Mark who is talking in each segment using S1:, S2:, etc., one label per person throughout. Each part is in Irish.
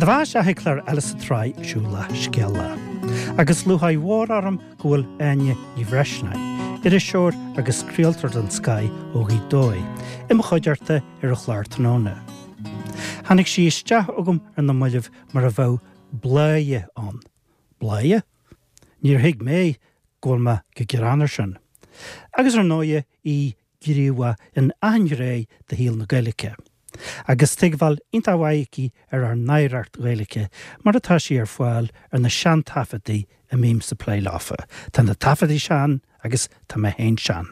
S1: do bheatha isteach ag clár eile sa tsraith Siúlach Scéalach. Agus lúcháir mhór orm go bhfuil Áine Ní Bhreisleáin, iriseoir agus craoltóir den scoth ó Ghaoth Dobhair, i mo chuideachta ar an chlár tráthnóna. Tháinig sí isteach chugam ar na mallaibh mar a bheadh bláidhe ann. Bláidhe? Níor thuig mé go bhfuil mé go gearán air sin. Agus ar ndóighe í gníomhach in achan ghné de shaol na Gaeilge. Agus tuigbheáil iontach mhaith aici ar ár n-oidhreacht Ghaeilge mar atá sí ar fáil ar na seantaifeadtaí a mbímse ag plé leofa. Tá na taifeadtaí sean agus tá mé féin sean.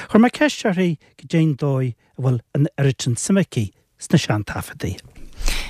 S1: Chuir mé ceist uirthi goidé'n dóigh a bhfuil an oiread sin suime aici sna seantaifeadtaí.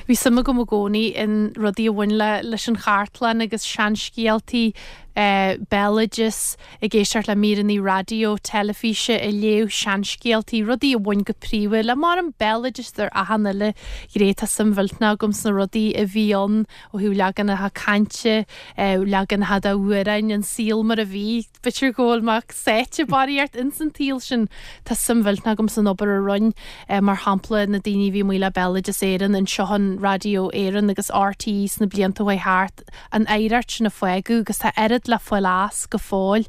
S2: Bhí suim agam i gcónaí in rudaí a bhain le leis an chartlann agus seanscéaltaí, béaloideas, ag éisteacht le míreanna raidió, teilifíse, ag léamh seanscéaltaí, rudaí a bhain go príomha le mar an béaloideas ar achan uile ghné. Tá suim mhillteanach agam sna rudaí a bhí ann ó thaobh leaganacha cainte, leaganacha d'amhráin, an saol mar a bhí. B'fhéidir go bhfuil mé sáite barraíocht ins an tsaol sin. Tá suim mhillteanach agam san obair a rinn, mar shampla, na daoine a bhí amuigh le Béaloideas Éireann, anseo in Raidió Éireann agus RTÉ sna blianta a chuaigh thart, an oidhreacht sin a fágadh agus tá oiread le fáil as go fóill.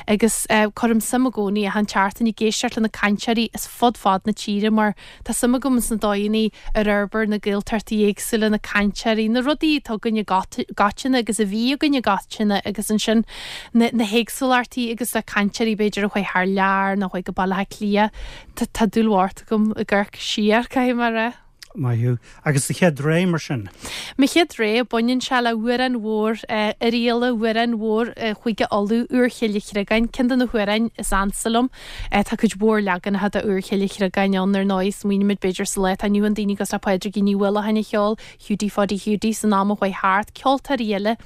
S2: Agus cuirim suim i gcónaí achan tseachtain ag éisteacht le na cainteoirí as fud fad na tíre mar Tá suim agam sna dóigheanna ar fhorbair na Gaeltachtaí éagsúla, na cainteoirí, na rudaí atá againn i gcoitinne agus a bhí againn i gcoitinne agus ansin na na héagsúlachtaí agus le cainteoirí b'fhéidir a chuaigh thar lear nó a chuaigh go Baile Átha Cliath. Tá tá dúil mhór agam ag amharc siar, caithfidh mé a rá.
S1: Maith thú. Agus do chéad rogha mar sin?
S2: Mo chéad rogha, baineann sé le hamhrán mhór Oirialla, amhrán mhór Chúige Uladh, Úr Chille Chreagáin, ceann de na hamhráin is ansa liom. Tá cuid mhór leaganacha de Úr Chille Chreagáin ann, ar ndóigh. Smaoinímid b'fhéidir sa lá atá inniu ann daoine cosúil le Pádraigín Ní Uallacháin a cheol Hiúdaí Pháidí Hiúdaí san am a chuaigh thart, ceoltóirí eile.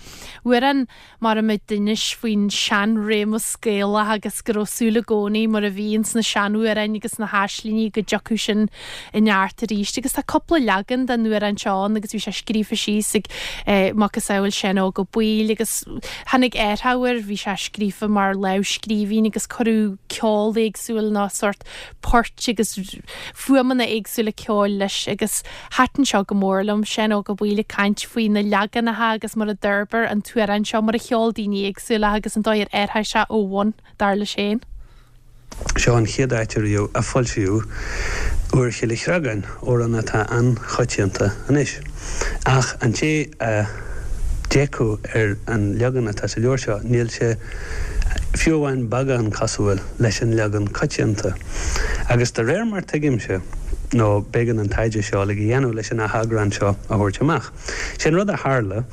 S2: Amhrán mar a d'inis faoin seanréimeas Gaelach agus go raibh súil i gcónaí mar a bhí ins na seanamhráin agus na haislingí go dtiocfadh sin i neart arís. Agus tá cúpla leagan den amhrán seo ann agus bhí sé scríofa síos ag macasamhail Seán Óg Ó Baoill agus tháinig athrú air, bhí sé scríofa mar lámhscríbhinn agus cuireadh ceol éagsúil nó sórt poirt agus fuaimeanna éagsúla ceoil leis agus thaitin seo go mór liom, Seán Óg Ó Baoill ag caint faoi na leaganacha agus mar a d'fhorbair an t-amhrán seo, mar a cheol daoine éagsúla agus an dóigh ar athraigh sé ó bhun, dar leis féin.
S3: Seo an chéad áit ariamh a foilsíodh Úr Chille Chreagáin, amhrán atá an-choitianta anois. Ach an té a d'fhéachfadh ar an leagan atá sa leabhar seo, níl sé fiú amháin beagán cosúil leis an leagan coitianta. Agus de réir mar tuigimse, nó b'éigean an taighde seo uilig a dhéanamh leis an atheagrán seo a thabhairt amach, sé an rud a tharla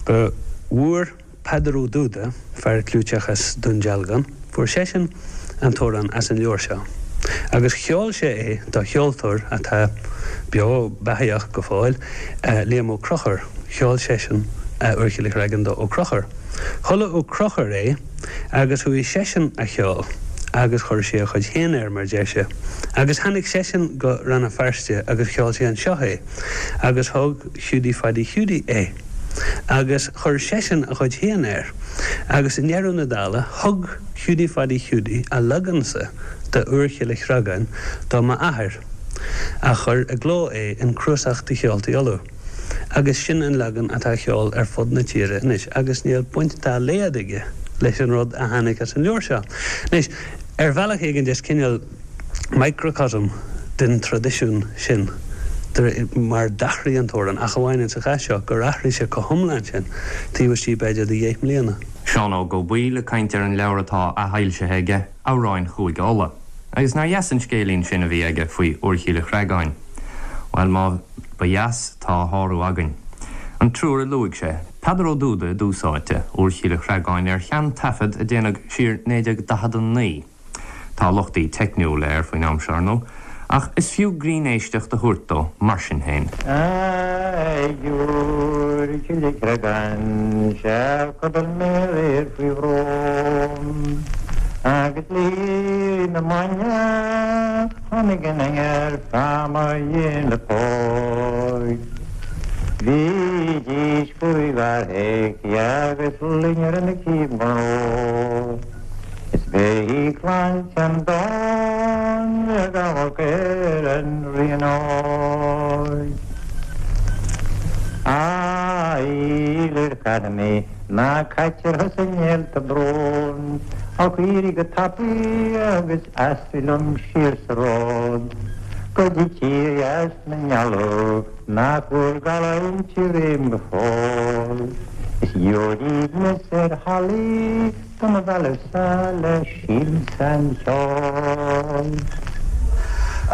S3: go bhfuair Peadar Ó Dúda, fear clúiteach as Dún Dealgan, fuair seisean an t-amhrán as an leabhar seo agus cheol sé é do cheoltóir atá beo beathaíoch go fóill, Liam Ó Conchúir. Cheol seisean Úr Chille Chreagáin do Ó Conchúir. Chuala Ó Conchúir é agus chuaigh seisean á cheol agus chuir sé a chuid féin air, mar deir sé. Agus tháinig seisean go Rann na Feirste agus cheol sé anseo é agus thóg Hiúdaí Phaidí Hiúdaí é agus chuir seisean a chuid féin air agus i ndeireadh na dála thug Hiúdaí Phaidí Hiúdaí a leagan-sa de Úr Chille Chreagáin do m'athair a chuir i gcló é in Cnuasach de Cheoltaí Uladh. Agus sin an leagan atá á cheol ar fud na tíre anois agus níl baint dá laghad aige leis an rud a tháinig as an leabhar seo. Anois, ar bhealach éigin is cineál microcosm den traidisiún sin mar d'athraigh an t-amhrán, ach amháin insa chás seo gur athraigh sé chomh hiomlán sin taobh istigh b'fhéidir de dheich mbliana.
S4: Seán Óg Ó Baoill ag caint ar an leabhar atá athfhoilsithe aige, Amhráin Chúige Uladh. Agus nár dheas an scéilín sin a bhí aige faoi Úr Chille Chreagáin? Bhuel, má ba dheas, tá a shárú againn. An triúr a luaigh sé, Peadar Ó Dúda i dtús áite, Úr Chille Chreagáin ar shean-taifead a déanadh siar 1949. Tá lochtaí teicniúla air faoin am seo, ar ndóigh, ach is fiú grinn-éisteacht a thabhairt dó mar sin féin.
S5: Ag Iúr Chille Chreagáin 'sea chodail mé aréir faoi bhrón Agus le na maidne tháinig an aoir fá mo dhéin le póig Bhídís faoi bharrthaigh agus loinnir ina cíb Is b'é clann Sheandáin ag amharc ar an ríon óig. Fhílir Charnaí ná caitear thusa i néalta bróin, Ach éirigh go tapaidh agus aistrigh liom siar sa ród Go dtí tír dheas na meala nach bhfuair gallúint i réim go fóill. Is gheobhair aoibhneas ar hallaí do mo mhealladh-sa le siansa an cheoil.
S6: A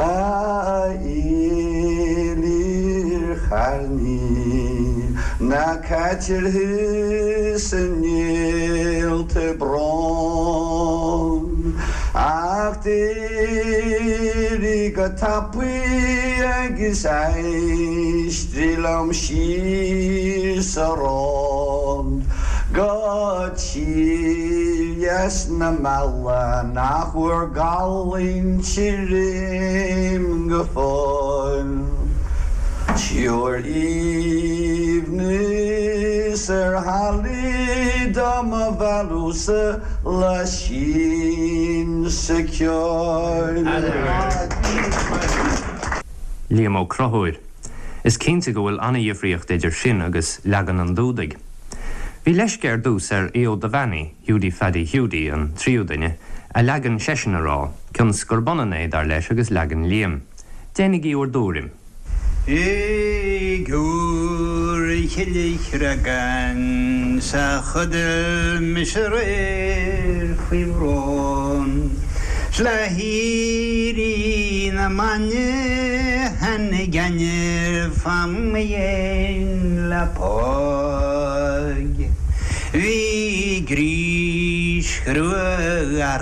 S6: Fhílir Charnaí, ná caitear thusa i néalta bróin, ach d'éirigh go tapaidh agus aistrigh liom siar sa ród go tír dheas na meala nach bhfuair gallúint i réim go fóill. Tabhair aoibhneas ar hallaí do mo mhealladh-sa le siansa ceoil.
S4: Liam Ó Conchúir. Is cinnte go bhfuil an-dhifríocht idir sin agus leagan an Dúdaigh. Bhí leisce ar dtús ar Aodh Ó Duibheannaigh, Hiúdaí Pheaidí Hiúdaí, an tríú duine, a leagan seisean a rá, cionn 's gurb ionann é, dar leis, agus leagan Liam. Déanaigí bhur dtuairim.
S7: Ag Iúr Chille Chreagáin 's a chodail mise aréir faoi bhrón 's le héirí na maidne tháinig ainnir fá mo dhéin leapaidh. Bhí grís chrua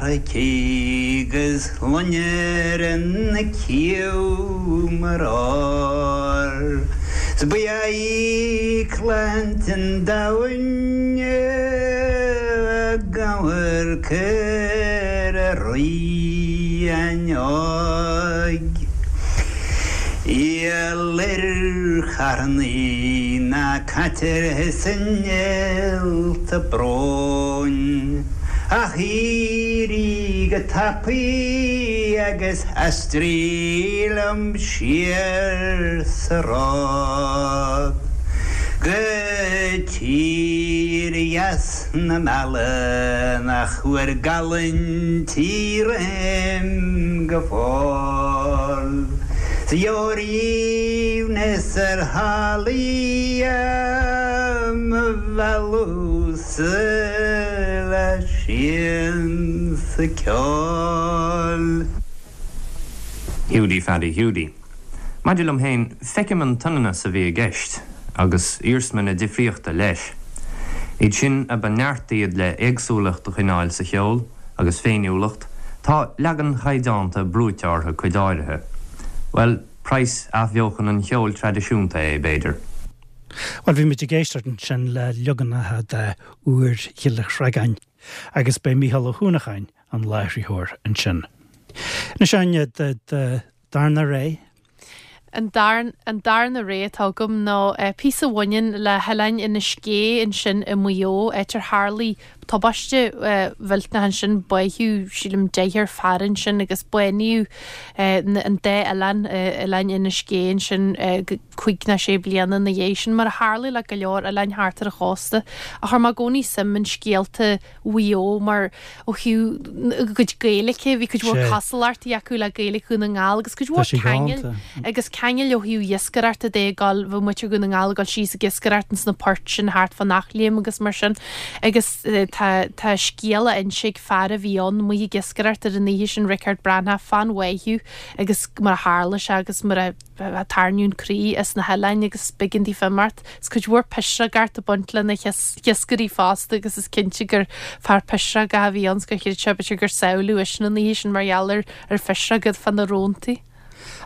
S7: aici 'gus loinnir ina cliabh mar ór. 'S ba í claint an domhain ag amharc ar a ríon óg. Fhílir Charnaí ná caitear thusa i néalta bróin, ach éirigh go tapaidh agus aistrigh liom siar sa ród go tír dheas na meala nach bhfuair gallúint i réim go fóill. 'S gheobhair aoibhneas ar hallaí do mo mhealladh-sa le siansa ceoil.
S4: Hiúdaí Pheaidí Hiúdaí. Maidir liom féin, feicim an t-ionannas a bhí i gceist, agus iarsma na difríochta leis. Iad sin a ba neart iad le éagsúlacht a choinneáil sa cheol, agus féiniúlacht, tá leagan chaighdeánta brúite orthu cuid áirithe. Bhuel, praghas athbheochan an cheoil traidisiúnta é, b'fhéidir.
S1: Bhuel, bhí muid ag éisteacht ansin le leaganacha de Iúr Chille Chreagáin, agus b'é Mícheál Ó hUanacháin an láithritheoir ansin. Anois, Áine, do darna rogha.
S2: An an darna rogha atá agam ná píosa a bhaineann le hoileán Inis Gé ansin i Maigh Eo, áit ar tharlaigh tubaiste mhillteanach ansin, báitheadh, sílim, deichniúr fear ansin agus bánaíodh an dá oileán, oileáin Inis Gé ansin cúig nó sé bliana ina dhiaidh sin, mar a tharlaigh le go leor oileáin thart ar an chósta. Ach chuir mé i gcónaí suim in scéalta Mhaigh Eo mar ó thaobh a gcuid Gaeilge, bhí cuid mhór cosúlachtaí acu le Gaeilge Dhún na nGall agus cuid mhór ceangail agus ceangail ó thaobh iascaireachta de ag dul, bheadh muintir Dhún na nGall ag dul síos ag iascaireacht ins na poirt sin thart fán Eachléim agus mar sin agus tá tá scéal á inse ag fear a bhí ann amuigh ag iascaireacht ar an oíche sin, Riocard Breathnach, fán bháitheadh agus mar a tharla sé agus mar a tarraingíodh an croí as na hoileáin agus b'éigean daofa imeacht. Is cuid mhór pisreogacht ag baint lena hiascairí fosta agus is cinnte gur fear pisreogach a bhí ann 's gur chreid sé b'fhéidir gur sábháileadh eisean an oíche sin mar gheall ar ar phisreoga fá na róntaí.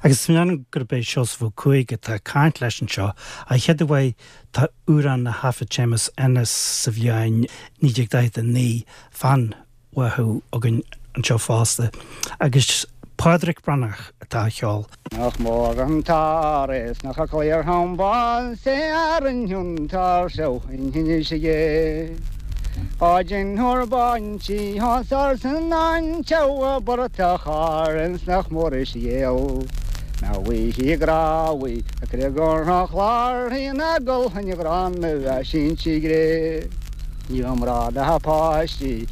S1: Agus measaim gurb é Seosamh Ó Cuaig atá ag caint leis anseo, a chéad uair tá amhrán a thaifead Séamus Ennis sa bhliain 1949 fán bháthadh againn anseo fosta, agus Pádraic Breathnach atá á cheol.
S8: Nach mór an t-ár is nach cliar thom bás é ar an iontar seo in Inis Gé. Á deintheoir baintí thá sar san an tseabha bratach ár ins nach mór is ghéal. Bhí grábhaí a creag an chlár ina gol an ghránna a sínte gré. Ní raibh mná ná páistí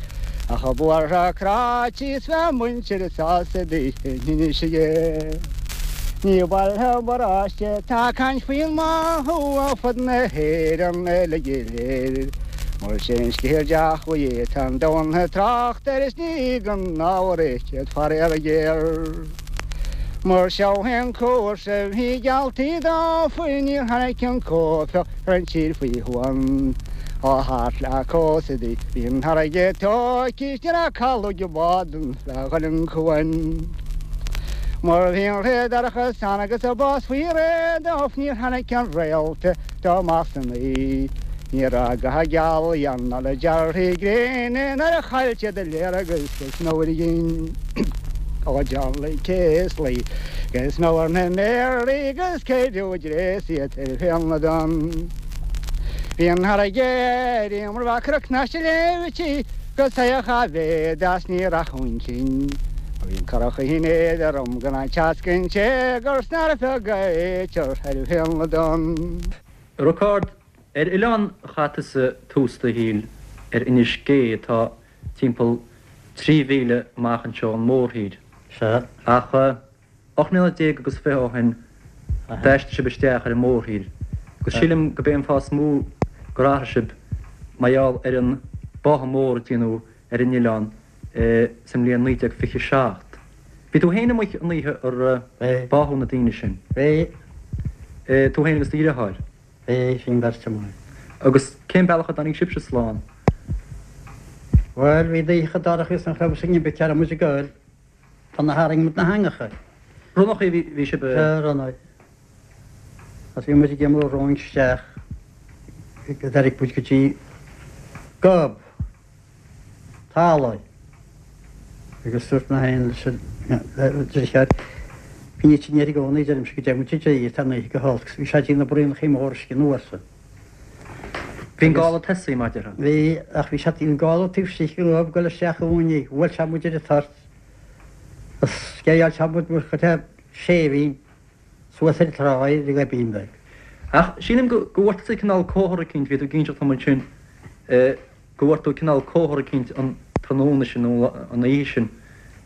S8: ach a buartha cráite is bheadh muintir sásta daoine aige. Ní baile paróiste tá caint faoin mbáthadh ar fud na hÉireann uilig go léir. Mar sin scéal deachmhaí tá an domhan ag trácht air is ní gan ábhar é céad faraor géar. Mar seo é an cúrsa bhí gealltaí dófa níor tháinig an cóimheá ar an tír faoi shuan. Ó thart le cósta di bhí an fharraige tóigthe is ní raibh caladh ag bád le dhul an cuan. Mar bhí an ré dorcha san agus a bás faoi réir dóibh níor tháinig an réalta dó amach san oíche. Ní raibh ga gealaí ann ná le dearthaí gréine nuair a chaill siad a léargas is nó ar a gcinn. Ó John Lee Céaslaí agus nó ar na méaraí agus céideadh dréas iad ar féal na dtonn. Bhí an fharraige ar iomramh mar bheadh cnoc na sléibhtí go saoch a mhéad as ní rachadh cinn. Bhí an curach in éadrom gan an teasc sé gur snar feag a éitear ar féal na dtonn.
S9: Riocard, ar oileán a chaith tusa tús do shaoil ar Inis Gé atá timpeall 3 mhíle amach anseo ón mórthír.
S10: Sea.
S9: Ach 18 mbliana agus 20 ó shin d'aistrigh sibh isteach ar an mórthír. Agus sílim go b'é an fáth is mó gur athraigh sibh mar gheall ar an báthadh mór a déanadh ar an oileán sa mbliain 1927. Bhí tú féin amuigh an oíche ar báthadh na daoine sin.
S10: Bhí.
S9: Tú féin agus do dheartháir.
S10: Bhí, bhí an bheirt amuigh.
S9: Agus cén bealach a dtáinig sibhse slán?
S10: Bhuel, bhí an oíche dorcha agus nach raibh fhios againn cá raibh muid ag goil. Tá na tharraing muid na heangacha.
S9: Ronnachaí a bhí sibh a.
S10: Sea, ronnaigh. Agus bhí muid ag imeall romhainn isteach go dtáinig muid go dtí gob. talaimh. Agus dúirt mé féin leis an deartháir, Bíonn iad sin air i gcónaí, deirimse, go dtéann muid i dtír, tá an oíche go holc. Bhí sé ag déanamh braonachaí móra uisce anuas.
S9: Bhí an gála tosaithe, mar a déarfá.
S10: Bhí, ach bhí sé an gála taobh istigh den ghob ag dul isteach i gcónaí. Bhuail sé muid ar an toirt. Agus sceideáil sé muid mar chuid de séimhín. Suas ar an trá ar an ghoibín beag.
S9: Ach sílim go bhfuair tusa cineál comhartha eicínt, bhí tú ag inseacht dom ansin, go bhfuair tú cineál comhartha eicínt an tráthnóna sin nó an oíche sin,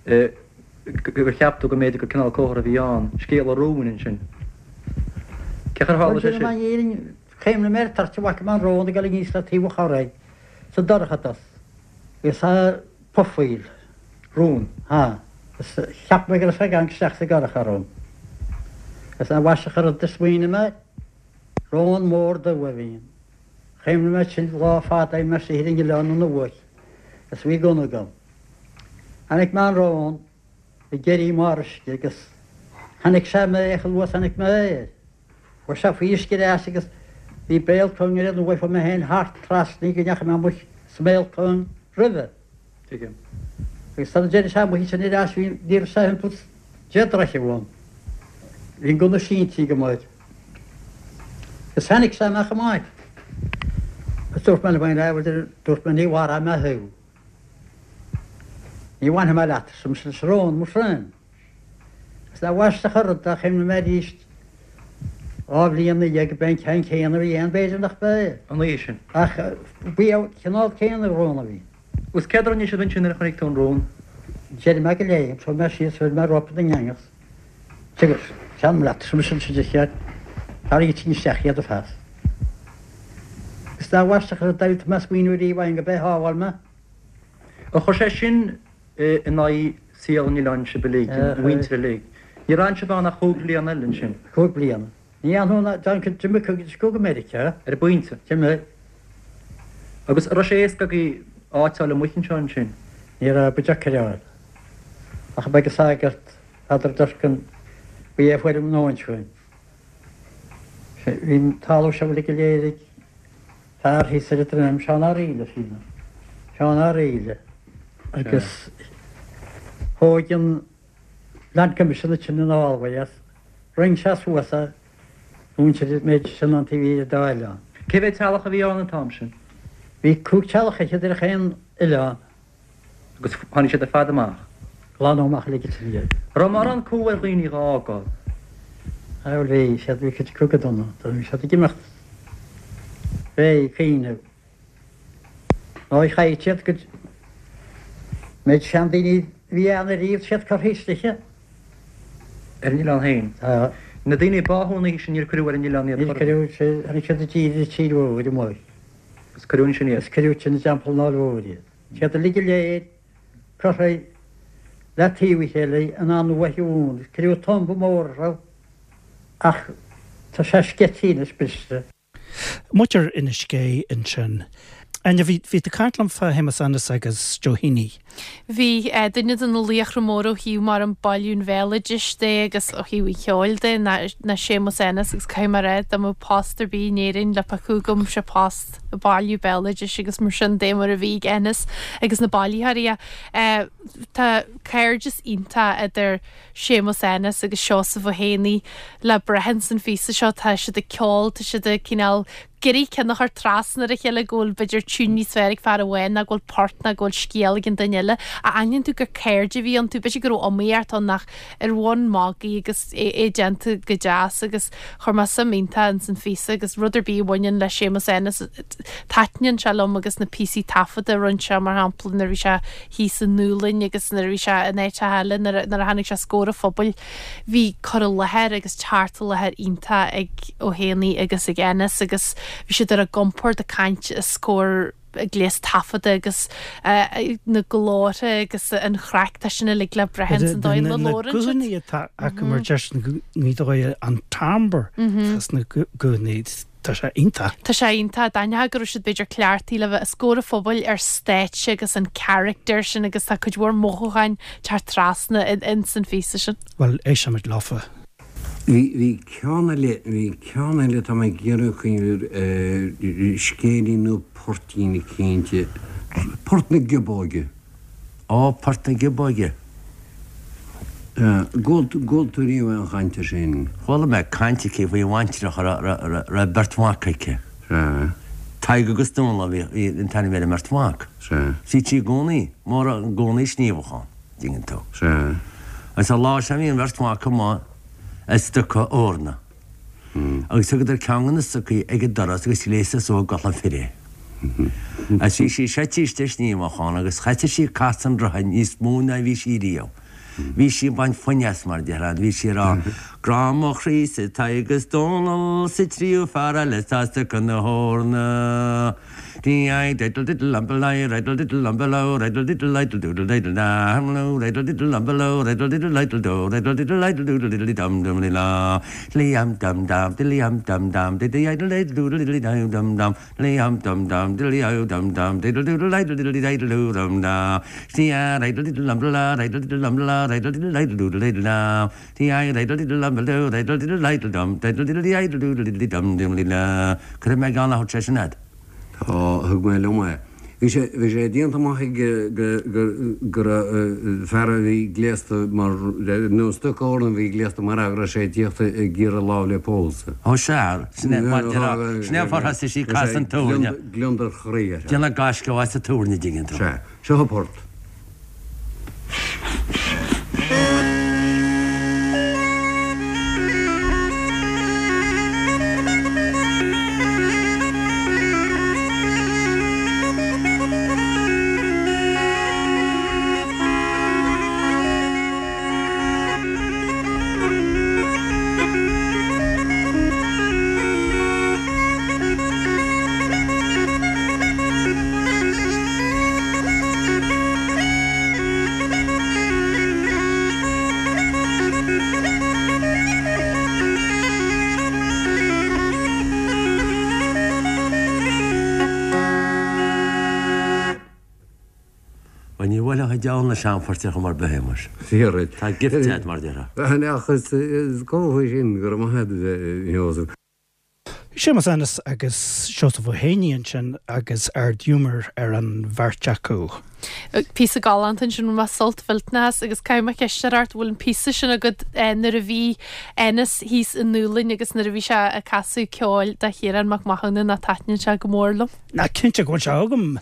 S9: gur cheap tú go mb'fhéidir gur cineál comhartha a bhí ann, scéal an róin ansin. Cén chaoi ar tharla sé
S10: sin?
S9: Bhuel,
S10: sílim, chuimhnigh mé ar an toirt a bhfaca mé an rón ag dul aníos le taobh an chorraigh sa dorchadas agus a pufaíl.
S9: Rón.
S10: Ha. Is cheap mé go raibh sé ag amharc isteach sa gcurach orm. Is an mhaise an rud a smaoinigh mé, rón mór dubh a bhí ann. Chuimhnigh mé sin lá fada bhí mé istigh ar an oileán an uair is bhí gunna agam. Chonaic mé an rón ag éirí i mbarr uisce agus chonaic sé mé chomh luath is a chonaic mé é. Chuaigh sé faoi uisce ar ais agus bhí béal cúng ar an uaigh, chuaigh mé féin thart trasna go ndeachaigh mé amuigh sa mbéal cúng roimhe.
S9: Tuigim.
S10: Agus sara dtéann sé amuigh ansin ar ais bhí, ní raibh sé thimpeall 10 dtroithe uaim. Bhí an gunna sínte agam air. Agus tháinig sé amach amach. Agus dúirt mé liom féin, ah, bhuel, dúirt mé, ní mharóidh mé thú. Ní bhainfidh mé leat, arsa mise leis an rón, mo thréan. Is nach aisteach an rud é, chuimhnigh mé arís 2 bhliain ina dhiaidh gurb é an ceann céanna a bhí ann, b'fhéidir nach b'é.
S9: An oíche sin.
S10: Ach b'é an cineál céanna rón a bhí.
S9: Agus céard a rinne sibh ansin nuair a chonaic tú an rón?
S10: D'éirigh mé de léim, chuaigh mé síos, chuir mé rópa den eangach. Agus téanam leat, arsa mise leis an deartháir, tarraing isteach iad ar fad. Is nach aisteach an rud é, tá mé ag smaoineamh ariamh ann gurb é a shábháil mé.
S9: Ar chuir sé sin in aghaidh saol an oileáin sibh uilig, an mhuintir uilig. Níor fhan sibh ann ach chúig bliana eile ansin.
S10: Chúig bliana. Ní fhanfaidh ná d'fhan d'imigh cuid acu go Meiriceá.
S9: Ar an bpointe.
S10: D'imigh.
S9: Agus an raibh sé éasca agaibh áit a fháil amuigh anseo ansin?
S10: Ní raibh, ba deacair a fháil. Ach ba ag an sagart, Peadar Durkan, ba é a fuair an nóin chugainn. Bhí an talamh seo uilig go léir ag fear thíos ar an droim, Seán Ó Raoille, sílim. Seán Ó Raoille. Agus thóg an Land Commission ansin an fhálmhaidh as. Roinn sé suas é, mhuintir an méid sin an taobh thiar dá oileán.
S9: Cé mhéad teaghlach a bhí ann an t-am sin?
S10: Bhí cúig teaghlach fhichead ar chaon oileán.
S9: Agus tháinig siad ar fad amach.
S10: Glanadh amach uilig ansin iad.
S9: Raibh mórán cumha ar dhaoine dhá fhágáil?
S10: Bhuel bhí siad, bhí cuid acu go dona, bhí siad ag imeacht fé cuimhneamh. Nó chaith siad go méid seandaoine a bhí ann ariamh, siad curtha istigh.
S9: Ar an oileán féin.
S10: Tá.
S9: Na daoine a báthadh an oíche sin níor cuireadh ar an oileán iad
S10: Níor cuireadh, tháinig siad i dtír i dTír Mhóir amuigh.
S9: Agus cuireadh ansin iad.
S10: Agus cuireadh ansin i dTeampall an Fháil Mhóir iad. Siad uilig go léir curtha le taobh a chéile in an uaigh mhór. Cuireadh tumba mór orthu ach tá sé sceití anois briste.
S1: Muintir Inis Gé ansin. Áine, bhí, bhí tú ag caint liom fá Shéamus Ennis agus Joe Heaney.
S2: Bhí, duine de na laochra móra ó thaobh mar an bailiú an bhéaloidis de agus ó thaobh an cheoil de ná, ná Séamus Ennis agus caithfidh mé a rá dá mbeadh post ar bith in Éirinn le piocadh agam sé post ag bailiú béaloidis agus mar sin de mar a bhí ag Ennis agus na bailitheoirí. Tá cairdeas iontach idir Séamus Ennis agus Seosamh Ó hÉanaí le brath ins an phíosa seo. Tá siad ag ceol, tá siad ag cineál ag iarraidh ceann a chur trasna ar a chéile go bhfuil b'fhéidir tiún níos fearr ag fear amháin ná go bhfuil port ná go bhfuil scéal ag an duine eile. Ach aithníonn tú gur cairde a bhí iontu. B'fhéidir go raibh iomaíocht ann ach ar bhonn magaidh agus é déanta go deas agus chuir mé suim iontach ins an phíosa agus rud ar bith a bhaineann le Séamus Ennis taitníonn sé liom agus na píosaí taifeadta a rinne sé mar shampla nuair a bhí sé thíos i nDúlainn agus nuair a bhí sé in áiteacha eile, nuair a tháinig sé os comhair an phobail, bhí cur i láthair agus teacht i láthair iontach ag Ó hÉanaí agus ag Ennis agus bhí siad ar a gcompord ag caint os comhair gléas taifeadta agus na glórtha agus an chraic, tá sin uilig le brath ins an dóigh ina
S1: Na
S2: labhrann siad.
S1: guthanna atá acu mar deir siad i nGaoth Dobhair an timbre atá sna guthanna. Tá sé iontach.
S2: Tá sé iontach. D'aithneofá go raibh siad b'fhéidir cleachtaithe le bheith os comhair an phobail ar stáitse agus an character sin agus tá cuid mhór mothúcháin teacht trasna ins an phíosa sin.
S1: Bhuel, éistfimid leofa.
S11: Bhí, bhí ceann eile, bhí ceann eile atá mé ag iarraidh cuimhneamh air, scéilín nó poirtín eicínt, Port na Giobóige.
S12: Ó, Port na Giobóige.
S11: Gcuala tú riamh aon chaint air sin?
S12: Chuala mé caint aici faoi bhaintreach a raibh beirt mhac aici.
S11: Sea.
S12: Tadhg agus Dónall a bhí an t-ainm ar an mbeirt mhac.
S11: Sea.
S12: Bhítí i gcónaí, mór i gcónaí ag sníomhadh ann, dtuigeann tú.
S11: Sea.
S12: Agus an lá sin bhí an bheirt mhac amuigh ag stoca eorna. Agus thugadar ceann de na stocaí ag an doras agus ghléasadh suas i gculaith fir é. Agus bhí sí seite istigh ag sníomhadh ann agus thoisigh sí ag casadh an rotha níos mó ná bhí sí riamh. Bhí sí ag baint foinn as, mar a déarfá, bhí sí ag rá, Grá mo chroí-sa Tadhg is Dónall 's an tríú fear eile atá ag stoca na heorna. Dí diddle diddle umble I riddle diddle umble o riddle diddle idle doodle diddle da hum lo riddle diddle umble o riddle diddle idle do riddle diddle idle doodle diddle dum dum li la li um dum dum diddly um dum dum diddly idle idle doodle diddly dum dum dum li um dum dum diddly o dum dum diddle doodle idle diddly idle doo dum da si a riddle diddle umble la riddle diddle umble la riddle diddle idle doodle diddle da ti i riddle diddle umble do riddle diddle idle dum diddle diddly idle doodle diddly dum dum li la Cuirfidh mé ceann a thabhairt sé sin fhad.
S11: Tá, thug mé liom é. Bhí sé, bhí sé déanta amach ag, go, go, go raibh fear a bhí gléasta mar, nó stoca eorna a bhí gléasta mar fhear go raibh sé ag tíocht ag iarraidh lámh le pósadh.
S12: Ó sea, sin é mar déarfá, sin é an fáth ar thosaigh sí ag casadh an tabhairne.
S11: Gliondar chroí air.
S12: Déanamh gaisce as an tabhairne, dtuigeann tú.
S11: Sea, seo an port.
S12: Bhuel, ní bhuailfeadh an diabhal na seanphoirt ar chuma ar bith é, muis.
S11: Fíor duit.
S12: Tá gift agat, mar a déarfá.
S11: Ach is cómhartha sin go raibh maith agat, a Sheosaimh.
S1: Séamus Ennis agus Seosamh Ó hÉanaí ansin agus ard-ghiúmar ar an bheirt acu.
S2: Píosa galánta ansin, bhain mé sult mhillteanach as agus caithfidh mé ceist a chur ort, bhfuil an píosa sin agat nuair a bhí Ennis thíos i nDúlainn agus nuair a bhí sé ag casadh ceoil do Chiarán Mac Mathúna nó taitníonn sé go mór liom.
S1: Ná cinnte go bhfuil sé agam!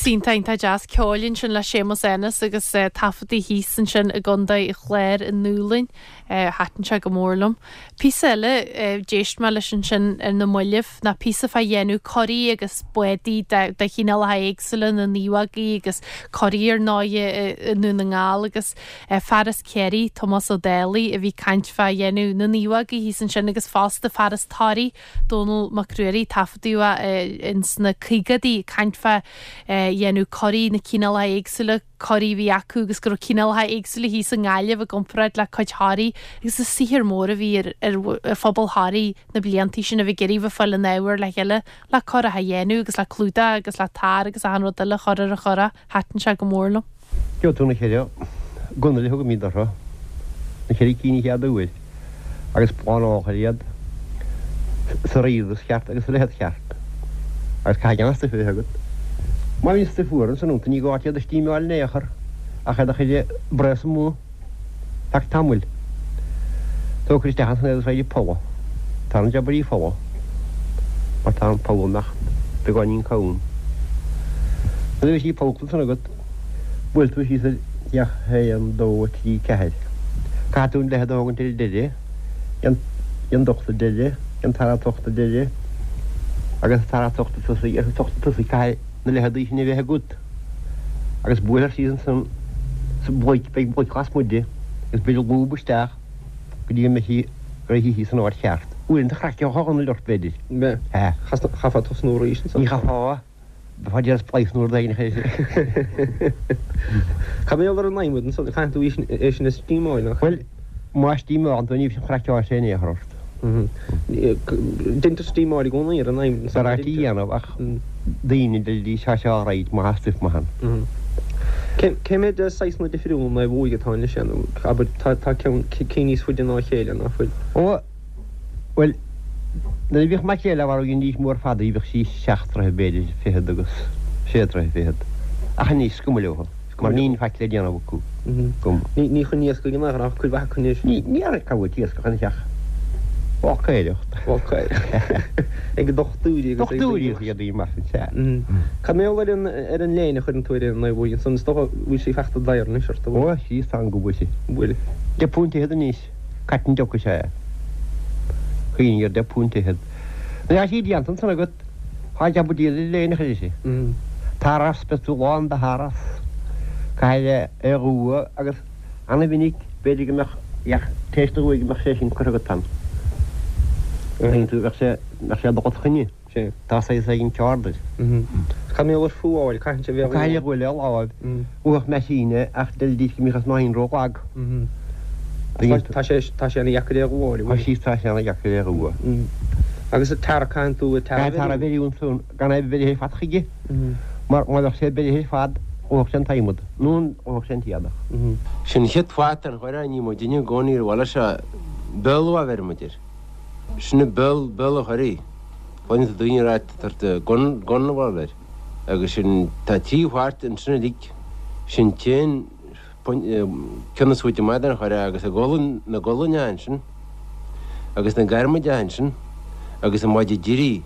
S2: Píosa iontach iontach deas ceoil ansin le Séamus Ennis agus taifeadtaí thíos ansin i gContae an Chláir i nDúlainn. Thaitin sé go mór liom. Píosa eile d'éist mé leis ansin ar na mallaibh ná píosa fá dhéanamh curaí agus bádaí de chineálacha éagsúla, na naomhógaí agus curaí ar ndóighe i nDún na nGall agus fear as Ciarraí, Tomás Ó Dálaigh, a bhí ag caint fá dhéanamh na naomhógaí thíos ansin agus fosta fear as Toraigh, Dónall Mac Ruairí, taifeadadh é ins na caogaidí ag caint fá dhéanamh curaí, na cineálacha éagsúla curaí a bhí acu agus go raibh cineálacha éagsúla thíos i nGaillimh i gcomparáid le cuid Thoraí agus an saothar mór a bhí ar ar phobal Thoraí na bliantaí sin a bheith ag iarraidh bheith ag fáil an ábhair le chéile le curach a dhéanamh agus le clúdach agus le tar agus achan rud eile a chur ar an churach. Thaitin sé go mór liom.
S13: Gheobhaidh tú na cheithre gunail a thugaimid orthu, na cheithre cinn an chéad uair, agus plánálfar iad sa righdas cheart agus sa leithead cheart, agus caithfidh an stuif a bheith agat. Má bhíonn stuif fuar ansan iontu ní gá duit iad a stímeáil in aon chor ach iad a chur ag braos amuigh feadh tamaill. Tógfar isteach ansan iad agus raghaidh folamh. Tá an jabairí folamh mar tá an poll amach beagáinín cúng. Nuair a bheidh sí pollta ansan agat, buailfidh tú síos ar theach 1, 2, 3, 4. Caithfidh tú an leithead a thógaint ar an deireadh, an t-ochtú deireadh, an tara t-ochtú deireadh agus an tara t-ochtú tosaigh agus an t-ochtú tosaigh caithfidh na leitheadaí sin a bheith agat. Agus buailfear síos ansan sa bhloic, beidh bloic lasmuigh di agus beir lúb isteach go dtí go mbeidh sí réitithe san áit cheart. Uaireanta chraiceochadh an ghunail ort, b'fhéidir.
S14: Mbeadh. Chaithfeá tosnú arís
S13: ansan. Ní chaithfeá. Bheifeá ag déanamh spleice nó rud éigin a chur.
S14: Cad mar gheall ar an adhmad ansan? Caitheann tú é sin a stímeáil, nach
S13: ea? Bhuel, má stímeálann tú ní bheidh an chraiceáil sé in aon chor ort.
S14: Deintear stímeáil i gcónaí ar an adhmad
S13: ansan. B'fhearr é a dhéanamh ach daoine deirfidís tá sé alright má tá stuif maith
S14: ann. Cé mhéad saghsanna difriúla naomhóige atá anois ann? Abair, tá cinn níos faide ná a chéile, ná fuil?
S13: Ó, bhuel, nuair a bhíodh maicréil á mharú dheinidís mór fada í, bhíodh sí seacht dtroithe b'fhéidir, fichead agus sé troithe fichead. Ach anois, is cuma leo. Mar níl faic le déanamh acu.
S14: Ní chun iascaigh in aon chor ach cuid mhaith acu anois.
S13: Ní ar cá bhfuil iascach ina theach. Bácaireacht.
S14: Bácaireacht. Ag dochtúirí
S13: agus ag daoine. Dochtúirí agus ag daoine mar sin, sea.
S14: Cad mar gheall ar an ar an léine a chuireann tú ar an naomhóig ansan? Is dócha go bhfuil sí fachta daor anois ort, an
S13: bhfuil? Ó, sea, tá go bhfuil sí.
S14: Bhfuil.
S13: £10 anois. Cairt an deoch is ea é. Cuimhnigh ar £10. Nuair atá sí déanta ansan agat, Tá jab diail le léine a chuir sí. Taras, beidh tú lán de tharas. Caithfidh é a dhua agus ana-mhinic b'fhéidir go mbeadh ach tar éis do dhua go mbeadh sé sin curtha agat ann. Tuigeann tú, bheadh sé, bheadh sé ag dul os coinne. Tá saghas éigin ceard air.
S14: Cad mar gheall ar fuáil, caitheann sé bheith
S13: Caithfidh é a dhua le láimh. Bhuafadh meaisín é ach deiridís go mbíodh an snáithín ró-lag.
S14: Tá sé tá sé ana-dheacair é a dhúáil, an
S13: bhfuil? Tá sí tá sé ana-dheacair é a dhua.
S14: Agus an tar, caitheann tú an tar
S13: a bheiriú? Tar a bheiriú ansan gan é bheirithe ar fad chuige mar má bheadh sé beirithe ar fad dhófadh sé an t-adhmad nó dhófadh sé an t-éadach.
S12: Sin an chéad pháirt den churach, ní muidinne i gcónaí ar bhaile seo, Béal a bheir muid air. Sin an béal, béal an churaigh. Cluineann tú daoine ag rá tá gun, gun a bhfuil air. Agus sin, tá trí pháirt ansin uilig, sin t-aon ceann is faide amach den churach agus a gualainn, na gualainne ansin, agus na garmaide ansin, agus an maide deiridh,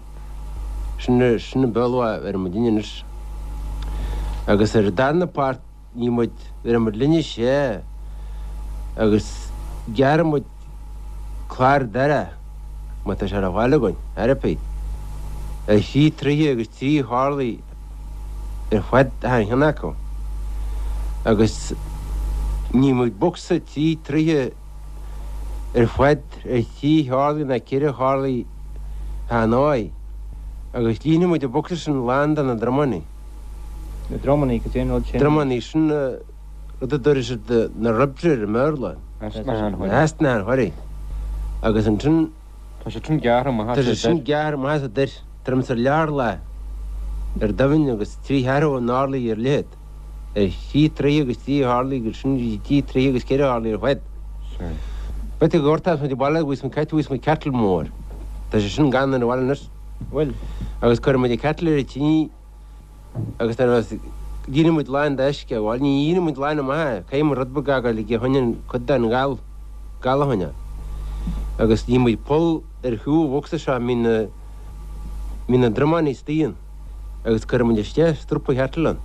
S12: sin, sin an béal a bheir muidinne anois. Agus ar an darna páirt, Ní muid, bheireadh muid linne sé agus gearrfaidh muid clár doire má tá sé ar fáil againn, ar bith, ar thrí troithe agus trí horlaí ar fad achan cheann acu agus ní muid bocsa trí troithe ar fad ar thrí horlaí ná ceithre horlaí achan áith agus líonfaidh muid an bocsa sin lán de na dromannaí.
S9: Na dromannaí, cad é an rud sin?
S12: Dromannaí, sin rud a dtabharfaidh siad na ribs air i mBéarla. Easna an churaigh. Agus ansin.
S9: Tá sé sin gearrtha amach
S12: as an doir. Tá sé sin gearrtha amach as an doir. Tuairim is ar leathdhorlach ar doimhin agus trí cheathrú an orlaigh ar leithead. Ar thrí troithe agus trí horlaí agus sin trí troithe agus ceithre horlaí ar fad. B'fhéidir go gcuirtear muid abhaile agus an cat agus an kettle mór. Tá sé sin gann ar an bhaile anois. Bhuel, agus cuirfidh muid an kettle ar an tine agus nuair a bheas, líonfaidh muid lán d'uisce, bhuel ní líonfaidh muid lán amach é, caithfidh muid rud beag a fhágáil aige a choinneáil cuid den ghal, gal a choinneáil. Agus líonfaidh muid poll ar thaobh an bhocsa seo a mbíonn na, mbíonn na dromáin istigh ann agus cuirfidh muid isteach strapa kettle ann.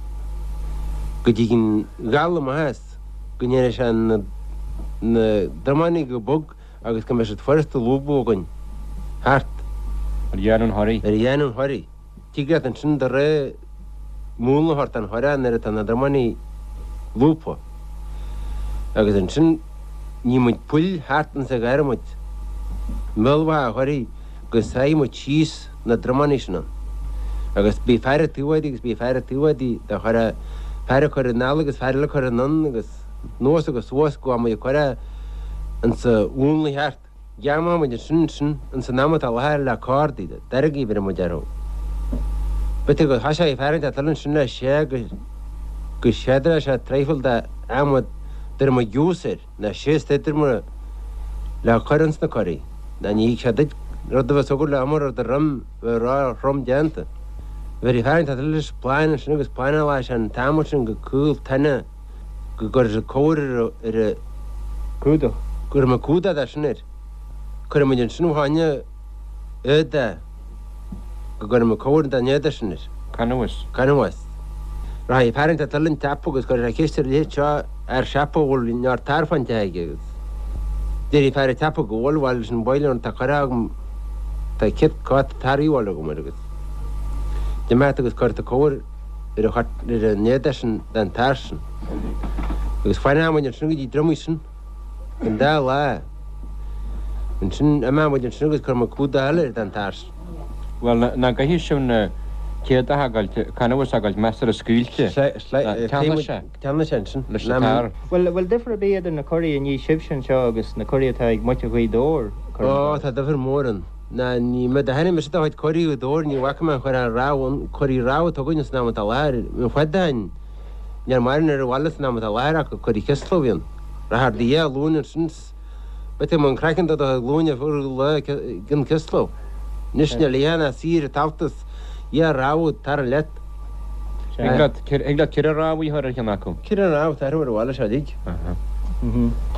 S15: Go dtig an gal amach as, go ndéanfaidh sé na na drománaí go bog agus go mbeidh siad furasta a lúbadh againn thart.
S16: Ar dhéanamh an churraigh.
S15: Ar dhéanamh an churraigh. Tig leat ansin do rogha múnla a thabhairt don churach nuair atá na drománaí lúbtha. Agus ansin ní muid poill thart insa ghadhramid, i mbéal mhaith an churraigh go sáigh muid síos na drománaí sin ann. Agus bhí fear ag taobh di agus bhí fear ag taobh di do chur fear ag cur anall agus fear eile ag cur anonn agus anuas agus suas go bhfuair muid an curach insa mhúnla cheart. Gheamhan muid ansin ansin ins an am atá láthair le cordaí, deirgí a bheireadh muid orthu. B'fhéidir go thoiseoidh fear inteacht eile ansin le sé go go séadradh sé traidhfil de adhmad d'fhuair muid giús air, ná síos idir muid le cur ins na curaí. Ná ní thig sé duit rud a bheas agat le iomar ar do dhroim bheith ró-throm déanta. Bheir fear inteacht eile leis plána ansin agus plánáladh sé an t-adhmad sin go caol tine. go gcuirfidh siad cóir ar an
S16: gcumhdach.
S15: Cuirfidh muid cumhdach de sin air. Cuirfidh muid ansin fá choinne éadaigh go gcuirfidh muid cóir den éadach sin air.
S16: Canbhás.
S15: Canbhás. Rachaidh fear inteacht eile an tsiopa agus cuirfidh sé ceist ar leithéid seo fhear siopa a bhfuil neart tar fán teach aige agus déarfaidh fear an tsiopa go bhfuil, bhuel leis an bhfaill tá curtha agam, tá céad cóta tar a dhíobháil agam air agus d'imeacht agus cuirfidh tú cóir ar an éadach sin den tar sin. Agus fanfaidh muid ansin go dtí dromaí sin an dá lá. Ansin imeoidh muid ansin agus cuirfidh muid cumhdach eile air den tar sin.
S16: Bhuel, nach gcaithfidh sibh an t-éadach a fhágáilt, canbhás a fhágáilt measartha scaoilte. Teannfaidh sé.
S15: Teannfaidh sé ansin.
S16: Leis an tar.
S5: Bhuel, bhfuil difear ar bith idir na curaí a ní sibhse anseo agus na curaí atá ag muintir Ghaoth Dobhair?
S15: Ó, tá difear mór ann. Ná ní mé do tháinig mise do chuid curaí Ghaoth Dobhair, ní bhfaca mé an chur ar rabhadh, an curaí rabhadh atá againn san am atá i láthair, an fad a tháin, níor maireann ar an bhaile san am atá i láthair ach curaí Chisla a bhí ann. Rachair do dhia glúin ansin 's b'fhéidir go mbeadh an craiceann do do chuid glúine fuar lá gin Chisla. Anois níl a dhath ná saor ag tabhairt is dhia rabhadh tar leat.
S16: Thig leat ceithre rabhadh a chur ar cheann acu.
S15: Ceithre rabhadh tarthu ar an bhaile seo uilig.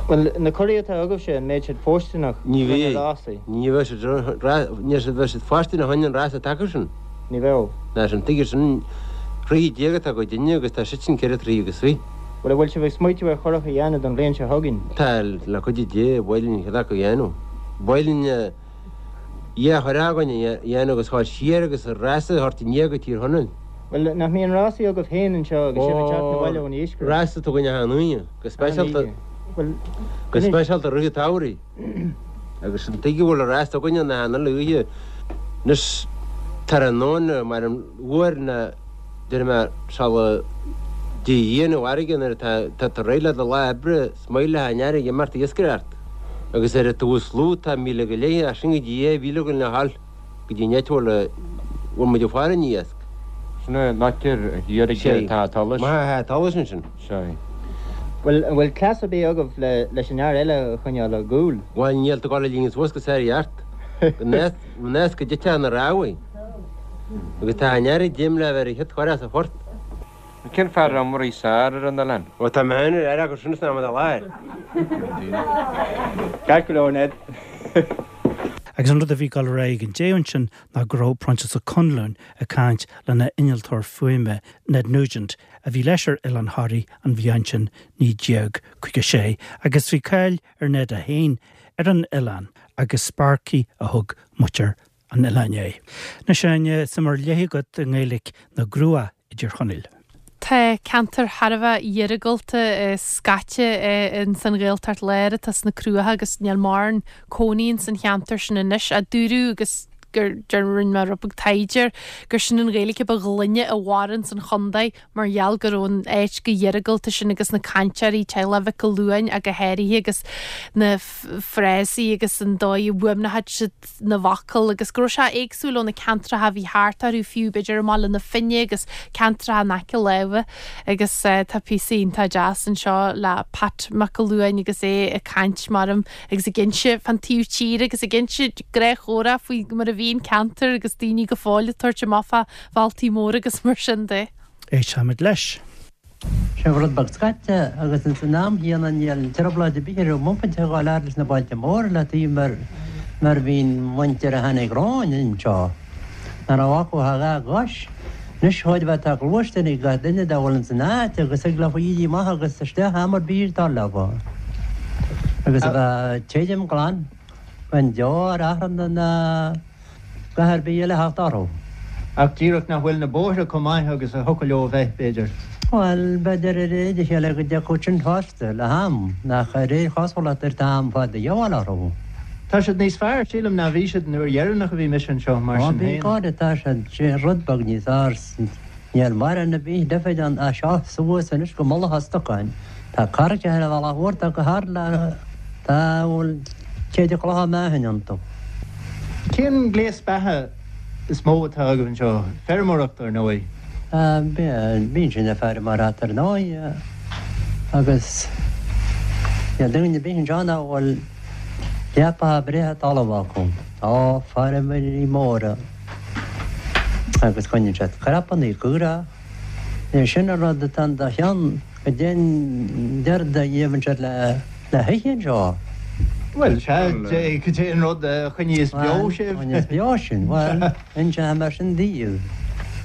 S5: Bhuel, na curaí atá agaibhse, an mbeidh siad fóirsteanach
S15: Ní do na rásaí? Ní bheidh siad, ní bheidh siad fóirsteanach chun an rása taca sin.
S5: Ní bheadh.
S15: Ná sin, tuige sin, troigh atá ag duine agus tá siad sin ceithre troigh agus fiche.
S5: Bhuel, an bhfuil sibh ag smaoitiú ar churach a dhéanamh don bhliain seo chugainn?
S15: Tá, le cuidiú Dé, ba mhaith linn ceann acu a dhéanamh. Ba mhaith linn. Dhia churach againn a dhéanamh agus ghabháil siar agus rása a thabhairt aniar go Tír Chonaill.
S5: Bhuel, nach mbíonn rásaí agaibh féin anseo agus sibh ag teacht 'na bhaile ón iascaireacht?
S15: Rása atá againn achan Aoine, go speisialta, go speisialta rith an tsamhraidh. Agus an tuige a bhfuil rása againne ná achan uile oíche anois tráthnóna mar an uair ná déarfaidh mé sula dtig a Dhia na bhfarraige nuair atá tá tú réidh le do lá oibre is maith le an fharraige imeacht ag iascaireacht. Agus ar an taobh is lú tá míle go leith, as sin go dtí 2,000 againn le dhul go dtí an áit a bhfuil a bhfuil muid ag faire an iasc.
S16: Sin an áit ar thiar ag an Teach Solais.
S15: Maith an Teach Solais ansin.
S16: Sea.
S5: Bhuel, an bhfuil cleas ar bith agaibh le leis an fhear eile a choinneáil á gcúl?
S15: Bhuel, níl tú ag dul a líonadh suas go sár-cheart. Go nós go dtitfeadh na rámhaí. Agus tá an fhear ag déanamh le bheith ar a chéad chur as a phort.
S16: Cén fear iomraí is fearr ar an oileán?
S15: Ó tá mé féin ar fhear acu sin san am atá i láthair.
S5: Ceart go leor, Ned.
S1: Agus an rud a bhí ag dul ar aghaidh ag an deireadh ansin ná go raibh Proinsias Ó Conluain ag caint lena innealtóir fuaime, Ned Nugent, a bhí leis ar Oileán Thoraí an bhliain sin 1956, agus bhí cáil ar Ned é féin ar an oileán agus Sparky a thug muintir an oileáin air. Anois, a Áine, suim ar leith agat i nGaeilic na gCruach i dTír Chonaill.
S2: Tá ceantar thar a bheith iargúlta scaite ins an Ghaeltacht Láir atá sna Cruacha agus níl mórán cónaí ins an cheantar sin anois. A dúradh agus gur rinne mé rud beag taighde air gur sin an Ghaeilge ba ghlaine a mhair ins an chontae mar gheall go raibh an áit chomh hiargúlta sin agus na cainteoirí, teaghlach Mhic an Luain ach go háirithe agus na frásaí agus an dóigh a bhfuaimneochadh siad na bhfocal agus go raibh sé éagsúil ó na ceantracha a bhí thart orthu fiú, b'fhéidir i mBaile na Finne agus ceantracha in aice láimhe agus tá píosa iontach deas anseo le Pat Mac an Luain agus é ag caint maram agus ag inse fán taobh tíre agus ag inse gnáthchomhrá faoi mar a bhí an ceantar agus daoine go fóill ag tabhairt amach fá bhealtaí móra agus mar sin de.
S1: Éistfimid leis.
S10: Sé rud beag scaite agus ins an am chéanna níl trioblóid ar bith ar muid ag gabháil fhad leis na bailte móra le taobh mar mar bhí'n muintir a tháinig romhainn anseo ná raibh acu ach a dhá gcois. Anois chóir a bheith tá gluaisteán ag gach duine dá bhfuil ins an áit agus thig leofa éirí amach agus isteach am ar bith dar leofa. Agus a bheith tirim glan gan deoir achrann ná a dhath ar bith eile a theacht orthu.
S17: Ach díreach nach bhfuil na bóithre chomh maith agus a thiocfadh leo a bheith, b'fhéidir.
S10: Bhuel, b'fhéidir ar réir a chéile go dtiocfadh sin fosta, le ham, ach ar aon chosúlacht ar tá am fada de dhíobháil orthu.
S17: Tá siad níos fearr, sílim, ná bhí siad an uair dheireanach a bhí mise anseo, mar
S10: Ó,
S17: sin
S10: bhí
S17: féin.
S10: go, tá siad rud beag níos fearr. Níl mórán ar bith difir ann as seo suas anois go Mullach a' Stocáin. Tá carraigeacha ar an bhealach mhór, tá go hard le, tá, bhuel, céide clocha meáchain iontu.
S17: Cén gléas beatha is mó atá agaibh anseo? Feirmeoireacht, ar ndóigh.
S10: Bíonn sin ag feirmeoireacht, ar ndóigh, agus níl duine ar bith anseo nach bhfuil leapacha breátha talaimh acu. Tá feirmeoirí móra agus coinníonn siad crapanna caorach. É sin an rud atá in do cheann, goidé an rud a gheibheann siad le hithe anseo.
S17: Bhuel, sea, goidé an rud a choinníos beo sibh.
S10: Bhuel, choinníos beo sinn, bhuel, inseoidh mé sin daoibh.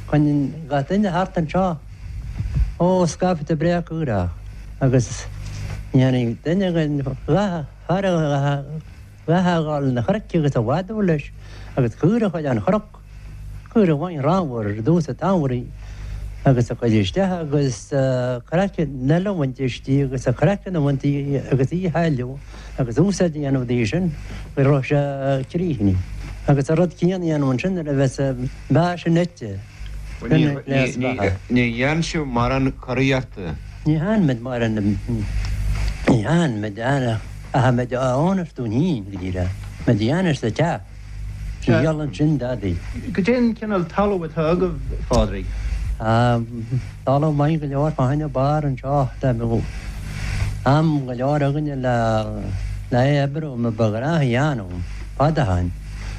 S10: Coinníonn gach duine thart anseo, ó, scaifte breá caorach agus ní tháinig duine againn a dhath a fhágáil na chnoic agus a mhadadh leis agus caora a chur ar an chnoc, caora amháin ramhar ar dtús an tsamhraidh agus a chur isteach agus craiceann eile a bhaint aisti agus a craiceann a bhaint di agus í a shailleadh agus úsáid a dhéanamh di sin go raibh sé críochnaithe. Agus an rud céanna a dhéanamh ansin nuair a bheas an beatha sin ite.
S18: Sin gléas beatha. Ní dhéanann sibh mórán curaíochta.
S10: Ní dhéanann muid mórán, ní dhéanann muid ach muid a fhónamh dúinn féin, go díreach. Muid a dhéanamh sa teach. Ní dhíolann sin dadaí.
S17: Goidé an cineál talamh atá agaibh, a Phádraig?
S10: Tá talamh maith go leor fá choinne barr anseo. Dá mbeadh am go leor againne le é a oibriú, mar ba ghnách a dhéanamh fad ó shin,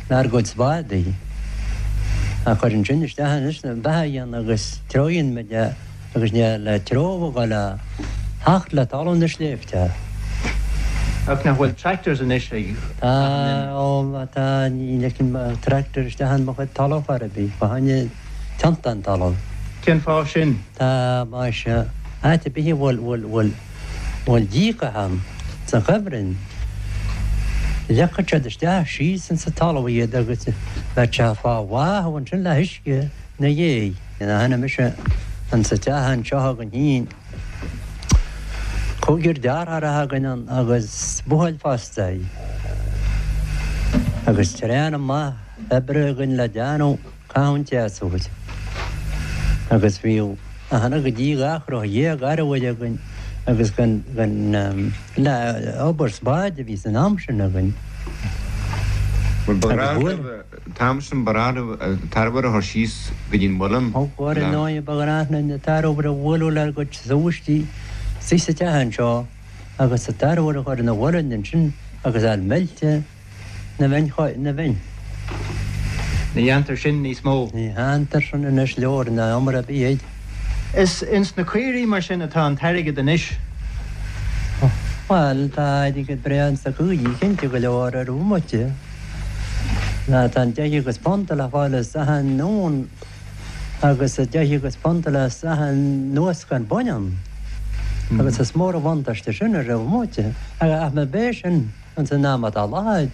S10: lenár gcuid spádaí a chur ansin isteach anois le beatha a dhéanamh agus treabhann muid é. agus níl an treabhadh ag dul a theacht le talamh na sléibhte.
S17: Ach nach bhfuil tractors anois ag
S10: Tá, ó, tá, ní ligfinn mo tractor isteach in mo chuid talamh chor ar bith, fá choinne teannta an talamh.
S17: Cén fáth sin?
S10: Tá, más ea, áit ar bith a bhfuil, bhfuil, bhfuil, bhfuil díocas ann, sa chuibhreann, leagfadh siad isteach síos insa talamh iad agus bheadh sé fá bháthadh ansin le huisce 'na dhéidh. Ina tháinig mise insa teach anseo againn féin, cúigear deartháireacha againn ann agus buachaill fosta agus tréan maith oibre againn le déanamh caitheamh an tséasúir. Agus bhíodh achan go dtí 12 arbhair againn agus gan le obair spáid a bhí san am sin againn.
S18: Bhuel, ba ghnách An t-am sin ba ghnách libh an t-arbhar a chur síos go dtí an muileann
S10: Ó ar
S18: le.
S10: ndóigh ba ghnách linn an t-arbhar a bhualadh lenár gcuid súistí istigh sa teach anseo agus an t-arbhar a chur ina mhuileann ansin agus a fháil meilte na bhfein.
S17: Ní dhéantar sin níos mó.
S10: Ní dhéantar sin anois leor ná iomaire ar bith air.
S17: Is ins na caoirigh mar sin atá an t-airgead anois.
S10: Bhuel, tá airgead breá ins na caoirigh, cinnte go leor ar bhomaite. Tá an deich agus punt le fáil as achan uan agus an deich agus punt le as achan luascán baineann. Agus is mór an bhuntáiste sin ar bhomaite. Ach má b'é sin ins an am atá i láthair,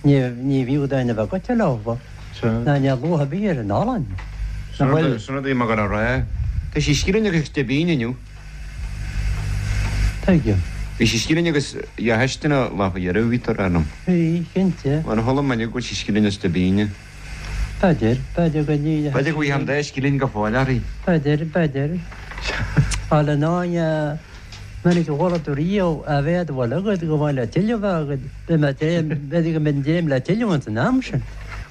S10: ní bhfiú duine a bheith goite leo, ná níl luach ar bith ar an olann.
S18: Sin rud a bhí mé ag gabháil a rá. Tá sí scilling agus deich bpingin inniu.
S10: Tuigim.
S18: Bhí sí scilling agus dhá phistin an lá faoi dheireadh, bhí tú ag rá liom.
S10: Bhí, cinnte.
S18: Mar chuala mé inniu go bhfuil sí scilling is deich bpingin.
S10: B'fhéidir, b'fhéidir go ní.
S18: B'fhéidir go bhfaighfeá an dá scilling go fóill uirthi.
S10: B'fhéidir, b'fhéidir. Bhuel, ar ndóigh, minic a chuala tú riamh a mhéad a bhfuil agat go bhfuil le tuilleamh agat, beidh mé tréan, b'fhéidir go mbeidh an dréim le tuilleamh ins an am sin.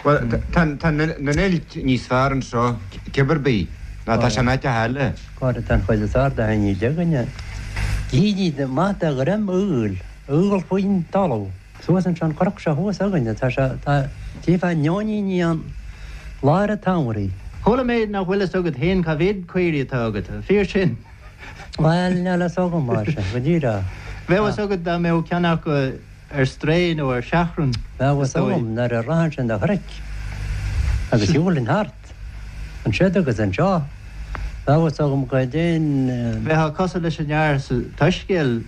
S18: Bhuel, tá tá na n-eilt níos fearr anseo, cibé ar bith, ná tá sé in áiteacha eile.
S10: Cóir atá an chuid is fearr de thaitní againne. Gídí maith de dhroim aoil, aol faoin talamh. Suas anseo an chnoc seo thuas againne, tá sé, tá, tchífeá neoiníní ann lár an tsamhraidh.
S17: Chuala mé nach bhfuil fhios agat féin cá mhéad caoirigh atá agat. An fíor sin?
S10: Bhuel, níl fhios agam, mar sin, go díreach.
S17: Bheadh fhios agat dá mbeadh ceann acu ar strae nó ar seachrán,
S10: Bheadh
S17: is
S10: fhios
S17: dóigh.
S10: agam nuair a rachainnse na chnoic agus shiúlfainn thart. Ansiúd agus anseo. Bheadh fhios agam goidé an.
S17: Bheifeá cosúil leis an fhear sa tSoiscéal,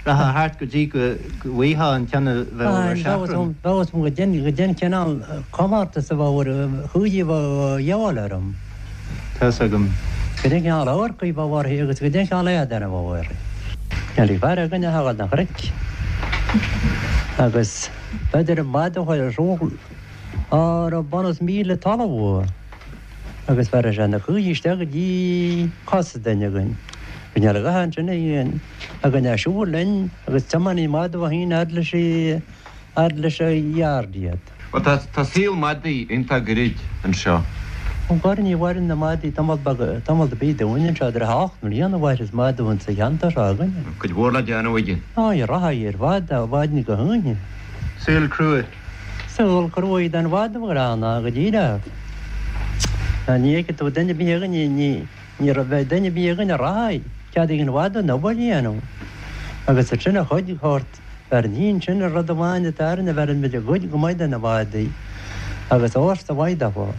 S17: rachfá thart go dtí go bhfaighfeá an ceann a bheadh ar seachrán.
S10: Bheadh fhios agam goidé an cineál comórtas a bheadh ar chúidí a bheadh a dhíobháil orm.
S17: Tá's agam.
S10: Goidé an cineál amharc a bheadh uirthi agus goidé an cineál éadain a bheadh uirthi. Níl fear againn a thagadh na chnoic agus b'fhéidir an mhadadh a chuir ar siúl á raibh bunús 1,000 talamh uaidh. Agus bheir sé na cúidí isteach go dtí cosa duine againn. Bhí neart gotha ansin againn ag siúl linn agus tiománaí madadh a féin fhad leis fhad leis an yard iad.
S18: Bhuel tá tá saol madaí iontach gairid anseo.
S10: Ó ghoir ní mhaireann na madaí tamall beag tamall ar bith dúinn anseo idir 8 mbliana a mhairfeas madadh insa cheantar seo againne.
S18: Cuid mhór le déanamh aige.
S10: Á rachadh ar fad ó mhaidin go hoíche.
S17: Saol crua.
S10: Saol cruaidh don mhadadh gránna go díreach. Ní fheicfidh tú duine ar bith againn, ní ní bheidh duine ar bith againn a rachaidh cead ag an mhadadh an obair a dhéanamh. Agus ansin a chuid shórt bheireann féin sin an rud amháin atá orainn a bheireann muid a gcuid go maith de na madaí agus fhórsa mhaith daofa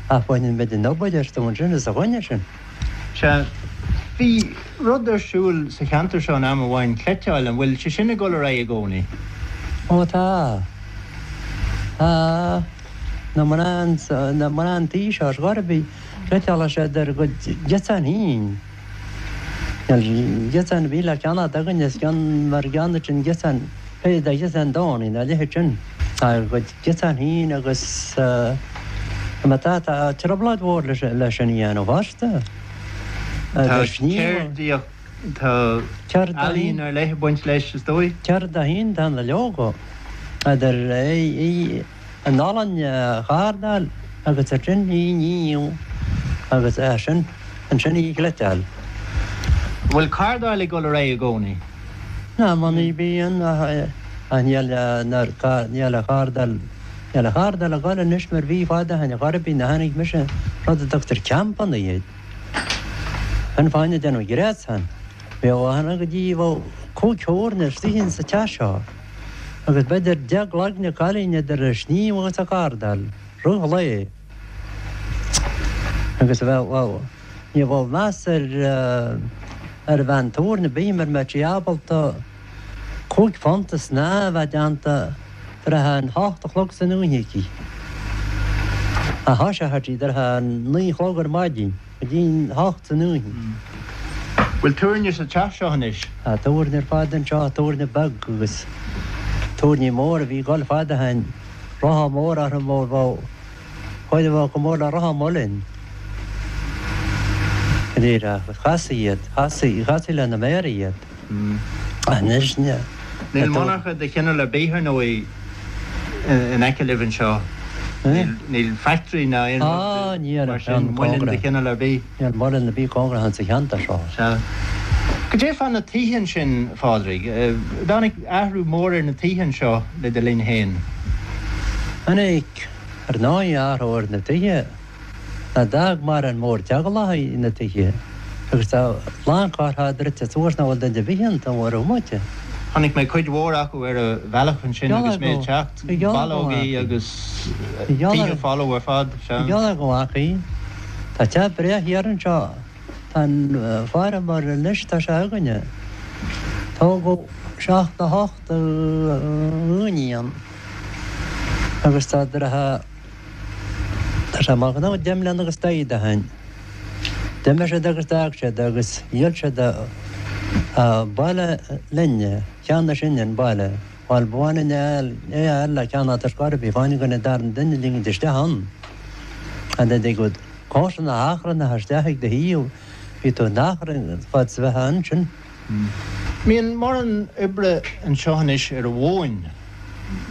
S10: ach baineann muid an obair astu ansin is a choinne sin.
S17: Sea, bhí rud ar siúl sa cheantar seo in am amháin, cleiteáil, an bhfuil sé sin ag dul ar aghaidh i gcónaí?
S10: Ó tá. Tá. Na mná, na mná an tí seo ar scor ar bith, cleiteálann siad ar a gcuid giosán féin. Níl giosán ar bith le ceannacht againn is ceann mar gceann sin giosán, pé de ghiosán Downie nó a leithéid sin. Tá a gcuid giosán féin agus má tá, tá trioblóid mhór leis sin a dhéanamh fosta.
S17: Tá ceardaíocht, tá ealaín ar leith ag baint leis, is dóigh.
S10: Ceird a haon tá na leoga, idir í an olann a chardáil agus ansin í a ní agus ansin ansin í a chleiteáil.
S17: An bhfuil cardáil ag dul ar aghaidh i gcónaí?
S10: Ná mar ní bhíonn ach níl níl an chardáil níl an chardáil ag dul anois mar bhí fad ó shin chor ar bith nuair a tháinig mise rud a dtugtar campanna iad. An fáinne déanamh gréasán. Bheadh achan go dtí bheadh 5 thabhairne istigh in sa teach seo agus b'fhéidir 10 gcloigne cailín idir a sníomh agus a cardáil rith lae agus bheadh bheadh ní bheadh meas ar ar bhean tabhairne ar bith mura mbeadh sí ábalta 5 phunt snámh a bheith déanta trátha an hocht a chlog san oíche aici. A thoiseochadh sí trátha an 9 a chlog ar maidin go dtí an hocht san oíche.
S17: Bhfuil tabhairne sa teach seo anois?
S10: Tá tabhairne ar fad anseo, tabhairne beag agus tabhairní mór a bhí ag dul fad ó shin, rotha mór orthu mór bheadh Chuid a bheadh chomh mór le rotha muilinn. Go díreach. Chastaí iad. Chastaí, chastaí lena méara iad. Anois, ní.
S17: Níl monarcha de chineál ar bith, ar ndóigh, in aice libh anseo. Níl factory ná aon rud mar sin, muileann de chineál ar bith.
S10: Níl muileann ar bith cóngarach insa cheantar seo.
S17: Sea. Goidé fá na tithe ansin, a Phádraig? Dtáinig athrú mór ar na tithe anseo le do linn féin?
S10: Tháinig, ar ndóigh, athrú ar na tithe. Ná d'fhág mórán mórtheaghlach na tithe agus tá a lán cartha druidte suas nach bhfuil duine ar bith iontu ar an bhomaite.
S17: Chonaic mé cuid mhór acu ar an bhealach ansin agus mé ag teacht, ballógaí agus tithe folamh ar fad.
S10: Sea. Gheall ar go bhfaca. Tá teach breá thiar anseo. Tá an feirmeoir anois, tá sé againne. Tógadh 78 dhaoine ann agus tá deartha, tá sé amach nó 10 mbliana agus daichead ó shin. D'imigh siad agus d'fhág siad agus dhíol siad an baile linne, cheannaigh sinne an baile. Bhuel, ba mhaith linn é a fháil le ceannacht ar scor ar bith, fá choinne an darna duine a ligint isteach ann. And then they go comharsana achrannacha isteach ag do thaobh, bhí tú in achrann fad is a bheifeá ansin.
S17: Mbíonn mórán oibre anseo anois ar an mhóin,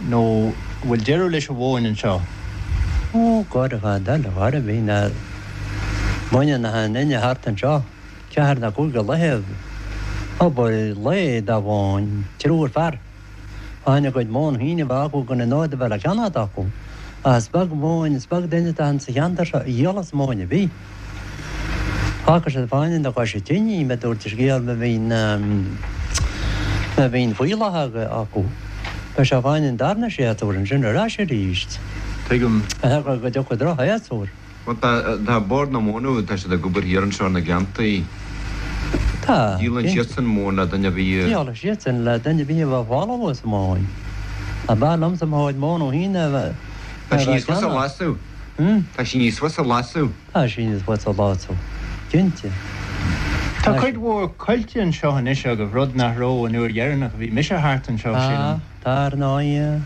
S17: nó an bhfuil deireadh leis an mhóin anseo?
S10: Ó, go fad eile, chor ar bith, ná baineann achan duine thart anseo. Ceathair nó cúig a laethe obair lae dá mhóin, triúr fear. Fá choinne a gcuid móin féin a bheith acu gan an fhód a bheith le ceannacht acu. Ach is beag móin, is beag duine atá insa cheantar seo a dhíolas móin ar bith. Fágfaidh siad fá choinne na coise tine í, mar dúirt an scéal má bhíonn, má bhíonn fuíollach acu. Beidh sé fá choinne an darna séasúr ansin ar ais arís.
S17: Tuigim.
S10: Go dtiocfaidh droch-shéasúr.
S18: Bhuel tá, tá Bord na Móna, tá siad ag obair thiar anseo ar na gleanntaí.
S19: Tá.
S18: Díolann siadsan móin le duine ar bith a.
S19: Díolann siadsan le duine ar bith a bheadh folamh sa mhóin. Ab fhearr liomsa mo chuid móna féin a bheith
S18: Tá sí
S19: á
S18: níos fusa a
S19: ceannach.
S18: lasadh. Tá sí níos fusa a lasadh.
S19: Tá sí níos fusa a lasadh, cinnte.
S17: Tá cuid mhór coillte anseo anois agaibh, rud nach raibh an uair dheireanach a bhí mise thart anseo,
S19: Tá,
S17: sílim.
S19: tá ar ndóigh.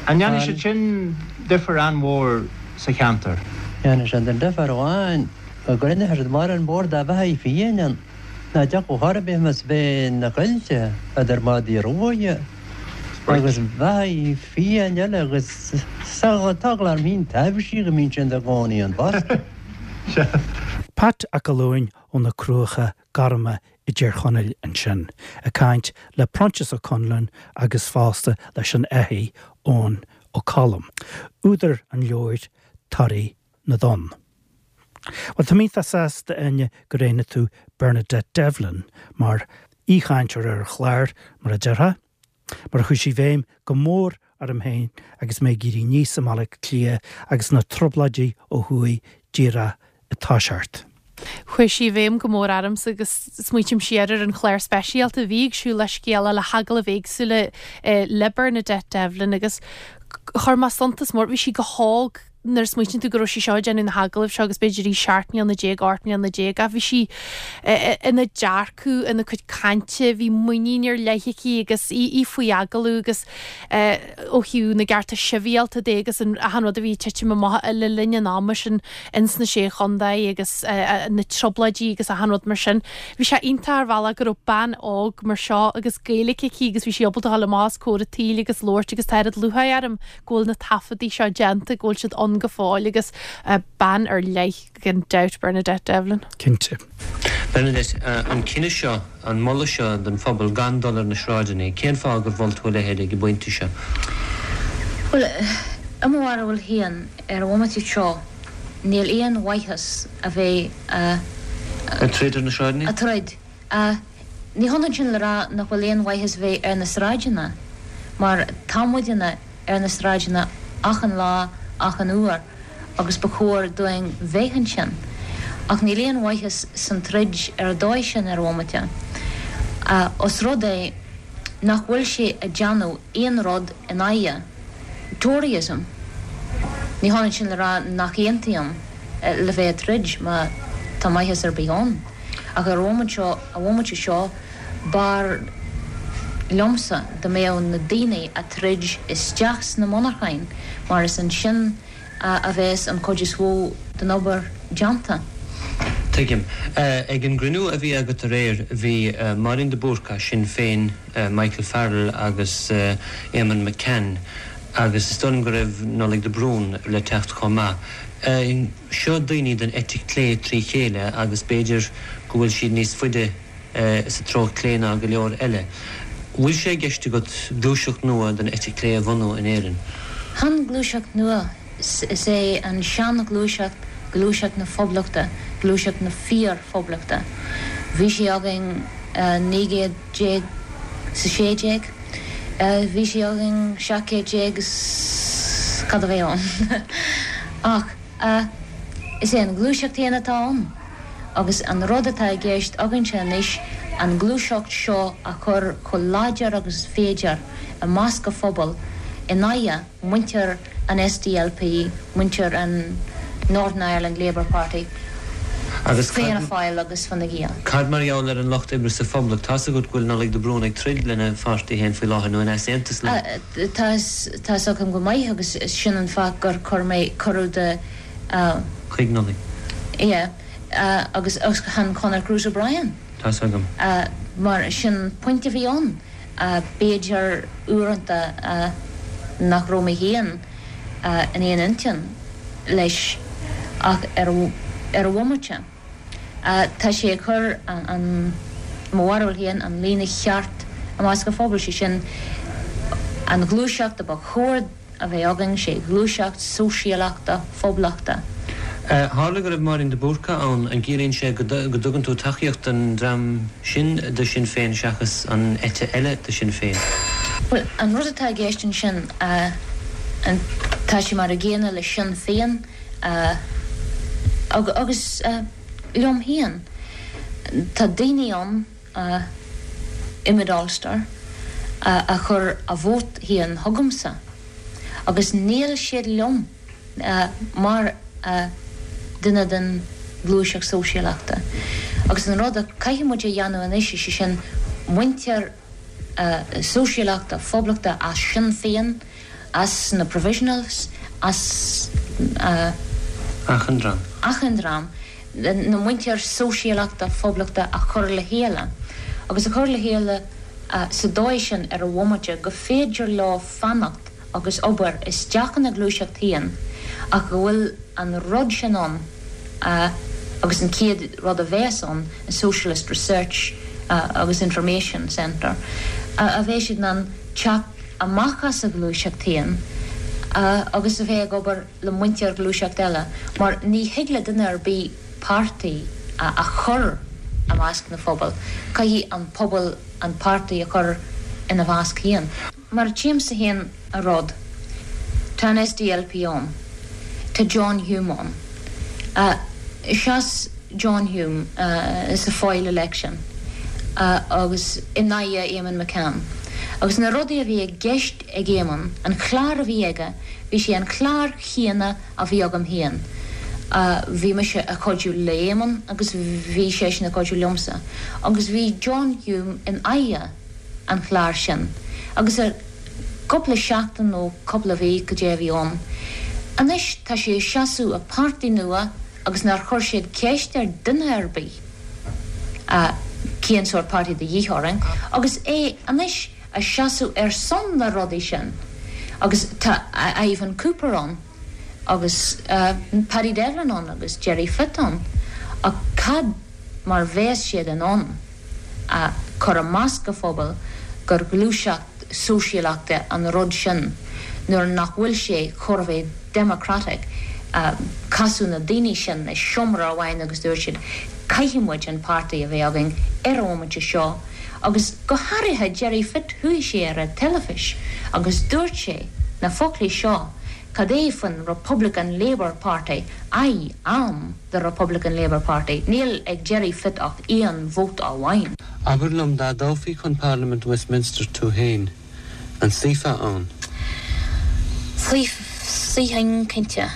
S17: An ndéanann siad sin difear an-mhór sa cheantar?
S19: Dhéanann siad an difear amháin go gcruinneoidh siad mar an bord dá bheathaí fiáin ann ná dtiocfadh chor ar bith más bheith na coillte idir madaí ruaidhe agus beathaí fiáin eile agus tá eagla orm féin taibhsí go mbíonn siad ina gcónaí ann fosta.
S1: Pat 'Ac Fhallúin ó na Cruacha Gorma i dTír Chonaill ansin, ag caint le Proinsias Ó Conluain agus fosta leis an fhathach Eoin Ó Colm, údar an leabhair Toraí na dTonn. Bhuel, tá mé iontach sásta, Áine, gur roghnaigh tú Bernadette Devlin mar aoichainteoir ar an chlár, mar a déarfá, mar chuaigh sí i bhfeidhm go mór orm féin agus mé ag éirí aníos i mBaile Átha Cliath agus na trioblóidí ó thuaidh díreach ag toiseacht.
S2: Chuaigh sí i bhfeidhm go mór ormsa agus smaoitím siar ar an chlár speisialta a bhí ag Siúil le Scéala le hagallaimh éagsúla le Bernadette Devlin agus chuir mé suntas mór, bhí sí go hóg nuair a smaoitíonn tú go raibh sí seo ag déanamh na hagallaimh seo agus b'fhéidir í 17 mbliana, 18 mbliana ach bhí sí ina dearcadh, ina cuid cainte, bhí muinín ar leith aici agus í í faoi agallamh agus ó thaobh na gcearta sibhialta de agus an achan rud a bhí ag titim amach le linn an ama sin ins na Sé Chontae agus na trioblóidí agus achan rud mar sin. Bhí sé iontach ar bhealach go raibh bean óg mar seo agus Gaeilge aici agus bhí sí ábalta a dhul amach os comhair an tsaoil agus labhairt agus tá oiread lúcháir orm go bhfuil na taifeadaí seo déanta, go bhfuil siad ann go fóill agus bean ar leith gan dabht, Bernadette Devlin.
S1: Cinnte.
S3: Bernadette, an cinneadh seo, an moladh seo don phobal gan dul ar na sráideanna, cén fáth gur mhol tú a leithéid ag an bpointe seo?
S20: Bhuel, i mo bharúil féin, ar an bhomaite seo, níl aon mhaitheas a bheith a.
S3: Ag troid ar na sráideanna?
S20: Ag troid. Ní hionann sin le rá nach bhfuil aon mhaitheas bheith ar na sráideanna, mar tá muidne ar na sráideanna achan lá, achan uair, agus ba chóir dúinn bheith ansin. Ach níl aon mhaitheas san troid ar an dóigh sin ar an bhomaite, os rud é nach bhfuil sé ag déanamh aon rud in aghaidh Toryism. Ní hionann sin le rá nach aontaím le bheith ag troid má tá maitheas ar bith ann. Ach ar an bhomaite seo, an bhomaite seo, b'fhearr liomsa dá mbeadh na daoine a' troid isteach sna monarcháin mar is ansin a bheas an chuid is mhó den obair déanta.
S3: Tuigim. Ag an gcruinniú a bhí agat aréir, bhí Máirín de Búrca, Sinn Féin, Michael Farrell agus Éamonn McCann agus is dóigh liom go raibh Nollaig de Brún le teacht chomh maith. Seo daoine den eite clé trí chéile agus b'fhéidir go bhfuil siad níos faide sa treo clé ná go leor eile. Bhfuil sé i gceist agat gluaiseacht nua den eite clé a bhunú in Éirinn?
S20: Chan gluaiseacht nua, is é an sean-ghluaiseacht gluaiseacht na Poblachta, gluaiseacht na fíor-Phoblachta. Bhí sé againn 19 céad 's 16, bhí sé againn 17 céad is cad a bheidh ann. Ach is é an ghluaiseacht fhéin atá ann agus an rud atá i gceist againnse anois an ghluaiseacht seo a chur chomh láidir agus is féidir i measc an phobail in aghaidh muintir an SDLP, muintir an Northern Ireland Labour Party,
S3: Agus
S20: Fianna
S3: cad,
S20: Fáil agus Fine Gael.
S3: cad mar gheall ar an Lucht Oibre sa Phoblacht? Tá's agat go bhfuil Nollaig de Brún ag troid lena pháirtí féin faoi láthair, nó in easaontas leo.
S20: Tá tá 'fhios agam go maith agus sin an fáth gur chuir mé cuireadh do.
S3: Chuig Nollaig.
S20: Yeah. Agus chan Conor Cruise O'Brien.
S3: Tá's agam.
S20: Mar sin an pointe a bhí ann. B'fhéidir uaireanta nach raibh mé féin in aon intinn leis ach ar an bhomaite tá sé ag cur an, mo bharúil féin, an líne cheart i measc an phobail, sé sin an ghluaiseacht a ba chóir a bheith againn, sé ghluaiseacht sóisialachta phoblachta.
S3: Tharla go raibh Máirín de Búrca ann, an gciallaíonn sé go dtugann tú tacaíocht don dream sin de Shinn Féin seachas an eite eile de Shinn Féin?
S20: Bhuel, an rud atá i gceist ansin, tá sé mar a gcéanna le Sinn Féin. Agus liom féin, tá daoine ann i Mid Ulster a chuir a vóta féin chugamsa agus níl siad liom mar duine den ghluaiseacht sóisialachta. Agus an rud a caithfidh muid a dhéanamh anois, is é sin muintir sóisialachta, poblachta as Sinn Féin, as na Provisionals, as.
S3: Achan dream.
S20: Achan dream. Na muintir sóisialachta, poblachta a chur le chéile. Agus a chur le chéile sa dóigh sin ar an bhomaite go féidir leo fanacht agus obair isteach ina gluaiseacht féin ach go bhfuil an rud sin ann agus an chéad rud a bheas ann, an Socialist Research agus Information Centre, a bheidh siad in ann teacht amach as a ghluaiseacht féin agus a bheith ag obair le muintir ghluaiseacht eile mar ní thig le duine ar bith páirtí a chur i measc na phobal, caithfidh an pobal an páirtí a chur ina mheasc féin. Mar a tchímse féin an rud, tá an SDLP ann, tá John Hume ann. Sheas John Hume sa Foyle election agus in aghaidh Eamonn McCann. Agus na rudaí a bhí i gceist ag Eamonn, an clár a bhí aige, bhí sé an clár chéanna a bhí agam féin. Bhí mise ag cuidiú le Eamonn agus bhí seisean ag cuidiú liomsa. Agus bhí John Hume in aghaidh an chláir sin agus ar cúpla seachtain nó cúpla mhí cad é a bhí ann. Anois tá sé ag seasamh i páirtí nua agus nár chuir siad ceist ar duine ar bith cén sórt páirtí de dhíth orainn agus é anois ag seasamh ar son na rudaí sin agus tá Ivan Cooper ann agus Paddy Devlin ann agus Gerry Fitt ann ach cad mar bheas siad in ann a chur i measc a phobail gur ghluaiseacht sóisialachta an rud sin nuair nach bhfuil sé chóir a bheith democratic. Casadh na daoine sin i seomra amháin agus dúirt siad caithfidh muid an páirtí a bheith againn ar an bhomaite seo agus go háirithe Gerry Fitt chuaigh sé ar an teilifís agus dúirt sé na foclaí seo cad é faoin Republican Labour Party I am the Republican Labour Party. Níl ag Gerry Fitt ach aon vóta amháin.
S3: Abair liom, dá dtoghfaí chun Parlaimint Westminster tú féin, an suífeá ann?
S20: Suífinn, cinnte.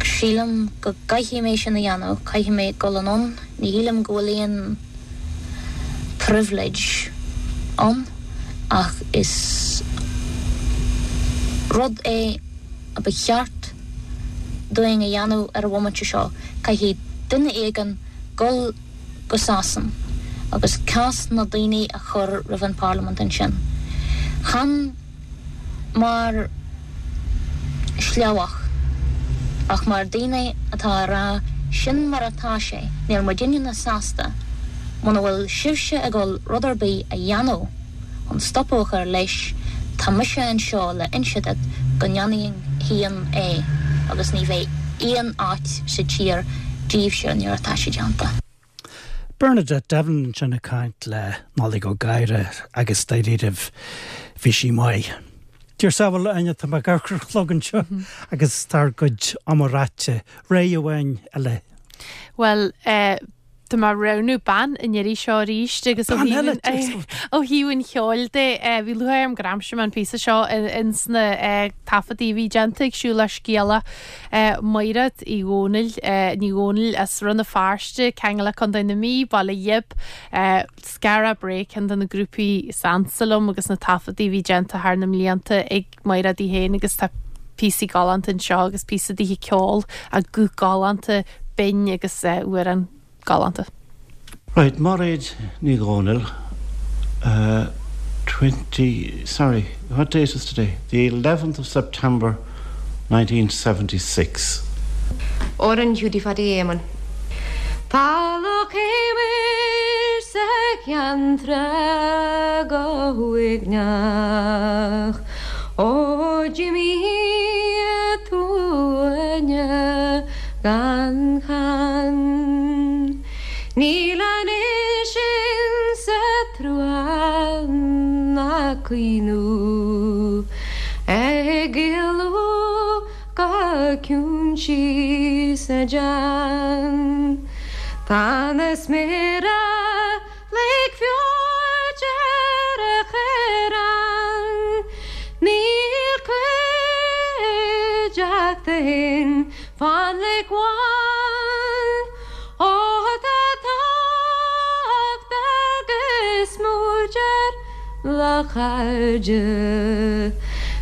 S20: Sílim go gcaithfidh mé sin a dhéanamh, caithfidh mé dul anonn. Ní shílim go bhfuil aon privilege ann ach is rud é a ba cheart dúinn a dhéanamh ar an bhomaite seo, caithfidh duine éigin dul go Sasain agus cás na daoine a chur roimh an bParlaimint ansin. Chan mar shleabhach ach mar daoine atá a rá sin mar atá sé, níl muidinne sásta muna bhfuil sibhse ag dul rud ar bith a dhéanamh. chun stopadh a chur leis, tá mise anseo le inse duit go ndéanfainn féin é agus ní bheidh aon áit sa tír díbhse nuair atá sé déanta.
S1: Bernadette Devlin ansin ag caint le Nollaig Ó Gadhra agus dáiríribh bhí sí maith. Dear samhail, Áine, tá mé ag amharc ar an chlog anseo agus tá ár gcuid ama ráite. Rogha amháin eile.
S2: Bhuel, eh, Tá mé ag roghnú bean an iarraidh seo arís agus ó thaobh an cheoil de, bhí lúcháir orm gur aimsigh mé an píosa seo ins na taifeadtaí a bhí déanta ag Siúlach Scéalach, Maighread Uí Dhónaill, Ní Dhónaill as Rann na Feirste, ceangal le Contae na Mí, Baile Ghib, Skara Brae, ceann de na grúpaí is ansa liom agus na taifeadtaí a bhí déanta thar na mblianta ag Maighread í féin agus tá píosaí galánta anseo agus píosa daoithe ceoil, a guth galánta, binn agus amhrán galánta.
S3: Right, Mairéad Ní Dhomhnaill, 20, sorry, what date is today? The 11th of September 1976.
S21: Amhrán Hiúdaí Phaidí Éamoinn. Tá Loch Eimhir sa Cheann Trá go huaigneach Ó d'imigh tú Áine gan cheann Níl anois insa trua ná caoineadh ag éalú go. ciúin síos ar dean. Tá na sméara like feoit ar a chaorán. Níl cuideachta fhéin fán lic bhán. Ó tá tábhacht agus muid ar do chairde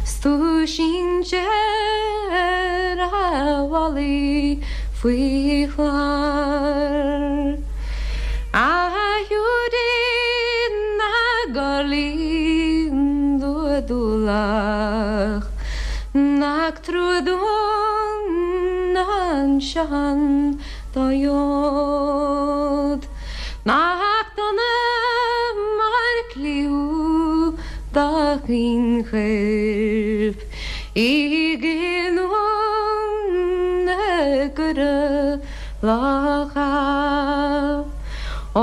S21: 's tú sínte ar a mhalaí faoi chlár. A Hiúdaí na gcorrlaí dúlach nach trua dúinn anseo an dá fheod. Nach dona mar cliú do chaoinchoirp i gcinniúint na gcuireadh locha. Ó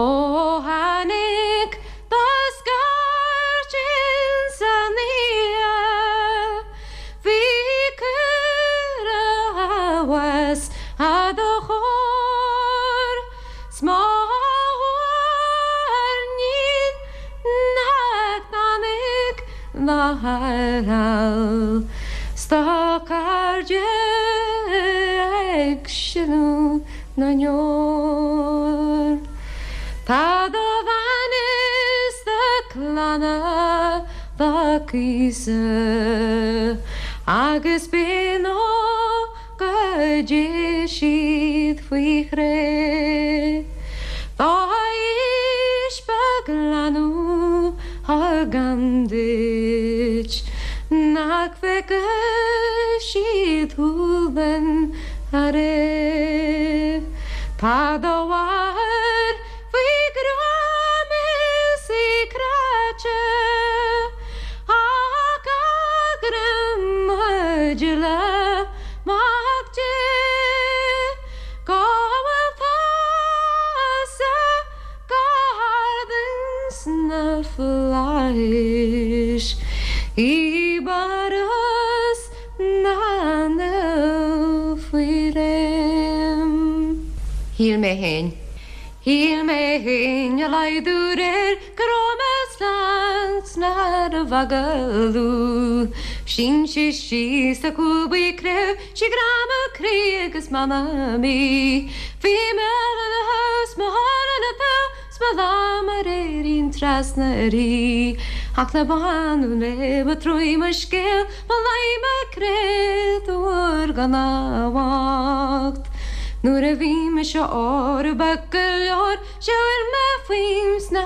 S21: tháinig do scairt insan oíche bhí cuireadh abhus a do chóir 's má thuairnín nach dtáinig do thairtheal 's do chairde ag sileadh na ndeor. Tá do bhean is do chlann dá gcíosadh agus b'in ó go dté siad faoi chré. Dá aois beag leanbh thugaim duit nach bhfeicfidh siad thú den ariamh. Tá do mháthair faoi ghreim is í cráite ach a greim le Mac Dé go bhfuil tusa go hard ins na flaithis i bParthas na Naomh faoi réim. Shíl mé fhéin. Shíl mé fhéin a laghdú réir go raibh mé slán 's nárbh agallamh. Shín sí síos a cúl buí creamh sí grá mo chroí agus m'anam í. Bhí mé ina house mo thóir ina taobh 's mo lámh mar fhéirín trasna uirthi. Ach le bánú léi ba truaí mo scéal Ba leí mo créatúr gan amhacht Nuair a bhí mise ór beag go leor Shiúil mé faoin sna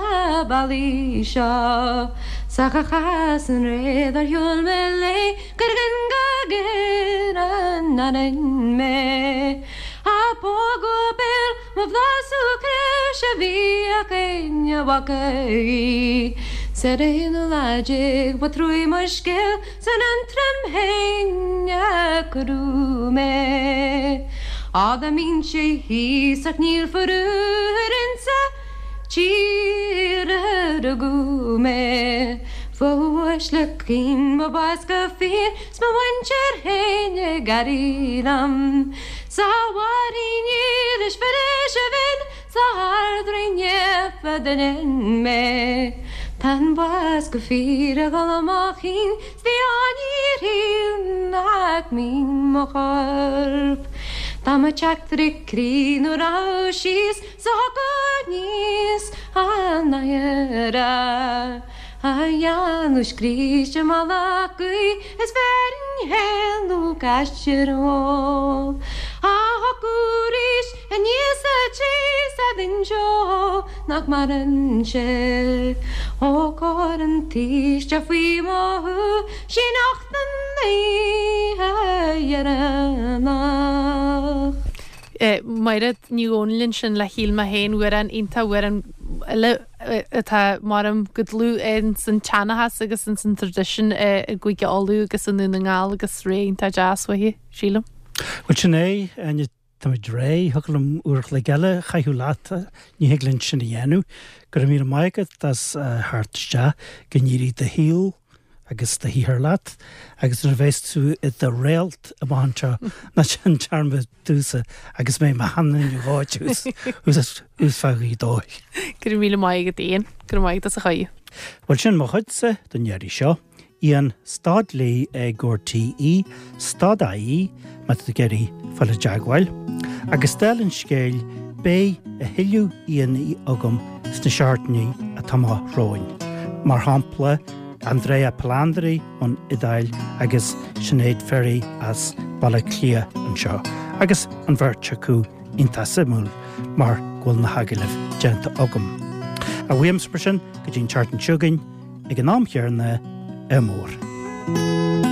S21: bealaí seo 'S ach a chas an ré dár shiúil mé léi Gur ghin go géar an anainn mé A pógadh a béal Mo bhlasú craobh sé bhíodh éinne bhfaca í 'S ar an aonú lá déag ba truaí mo scéal 's in Aontroim fhéin a cuireadh mé. Á dá mbeinnse thíos ach níl faraor insa tír a rugadh mé Fá uaisle caoin mo bás go fíor 's mo mhuintir fhéin ag airí liom. 'S a Mháirín dhílis mhilis a bhinn 's a hArd-Rí naofa d'fhinn mé. Tá an bás go fíor ag dul i mo chinn 's ní áinír nach mbíonn mo chorp. Dá mba teachtaire croí nó raibh síos 's a thiocfadh aníos an oighir. A dhéanamh scríste mala gaoth is bheirinn fhéin nó gaistear ó. A thiocfadh arís aníos sa tí 's a d'inseodh nach maireann sé. Ó cóir an tsaoiste faoi mo shúil sí nocht an oíche dheireanach.
S2: Mairéad Ní Dhomhnaill ansin le Shíl Mé Féin amhrán iontach amhrán eile atá maram go dlúth ins an tseanchas agus ins an traidisiún i gCúige Uladh agus i nDún na nGall agus ré iontach deas uaithi, sílim.
S1: Bhuel sin é, Áine, táimid réidh, thiocfadh liom uair a chloig eile a chaitheamh leat, ní thig linn sin a dhéanamh. Go raibh míle maith agat as theacht isteach, go n-éirí do shaol. agus do shaothar leat agus nuair a bheas tú i do réalt amach anseo ná déan dearmad domhsa agus mé i mo sheanduine dhóite thuas fá Ghaoth Dobhair.
S2: Go raibh míle maith agat Ian. Go raibh maith agat as an chuireadh.
S1: Bhuel sin mo chuidse don iarraidh seo. Ian stad lee ag RTÉ stad IE má tá tú ag iarraidh fáil i dteagmháil. Agus dála an scéil beidh a thuilleadh aíonna agam sna seachtainí atá amach romhainn. Mar shampla Andrea Palandri ón Iodáil agus Sinéad Ferry as Baile Átha Cliath anseo agus an bheirt acu iontach suimiúil mar go bhfuil na hagallaimh déanta agam. Ach uaimse mar sin go dtí an tseachtain seo chugainn ag an am chéanna, ádh mór.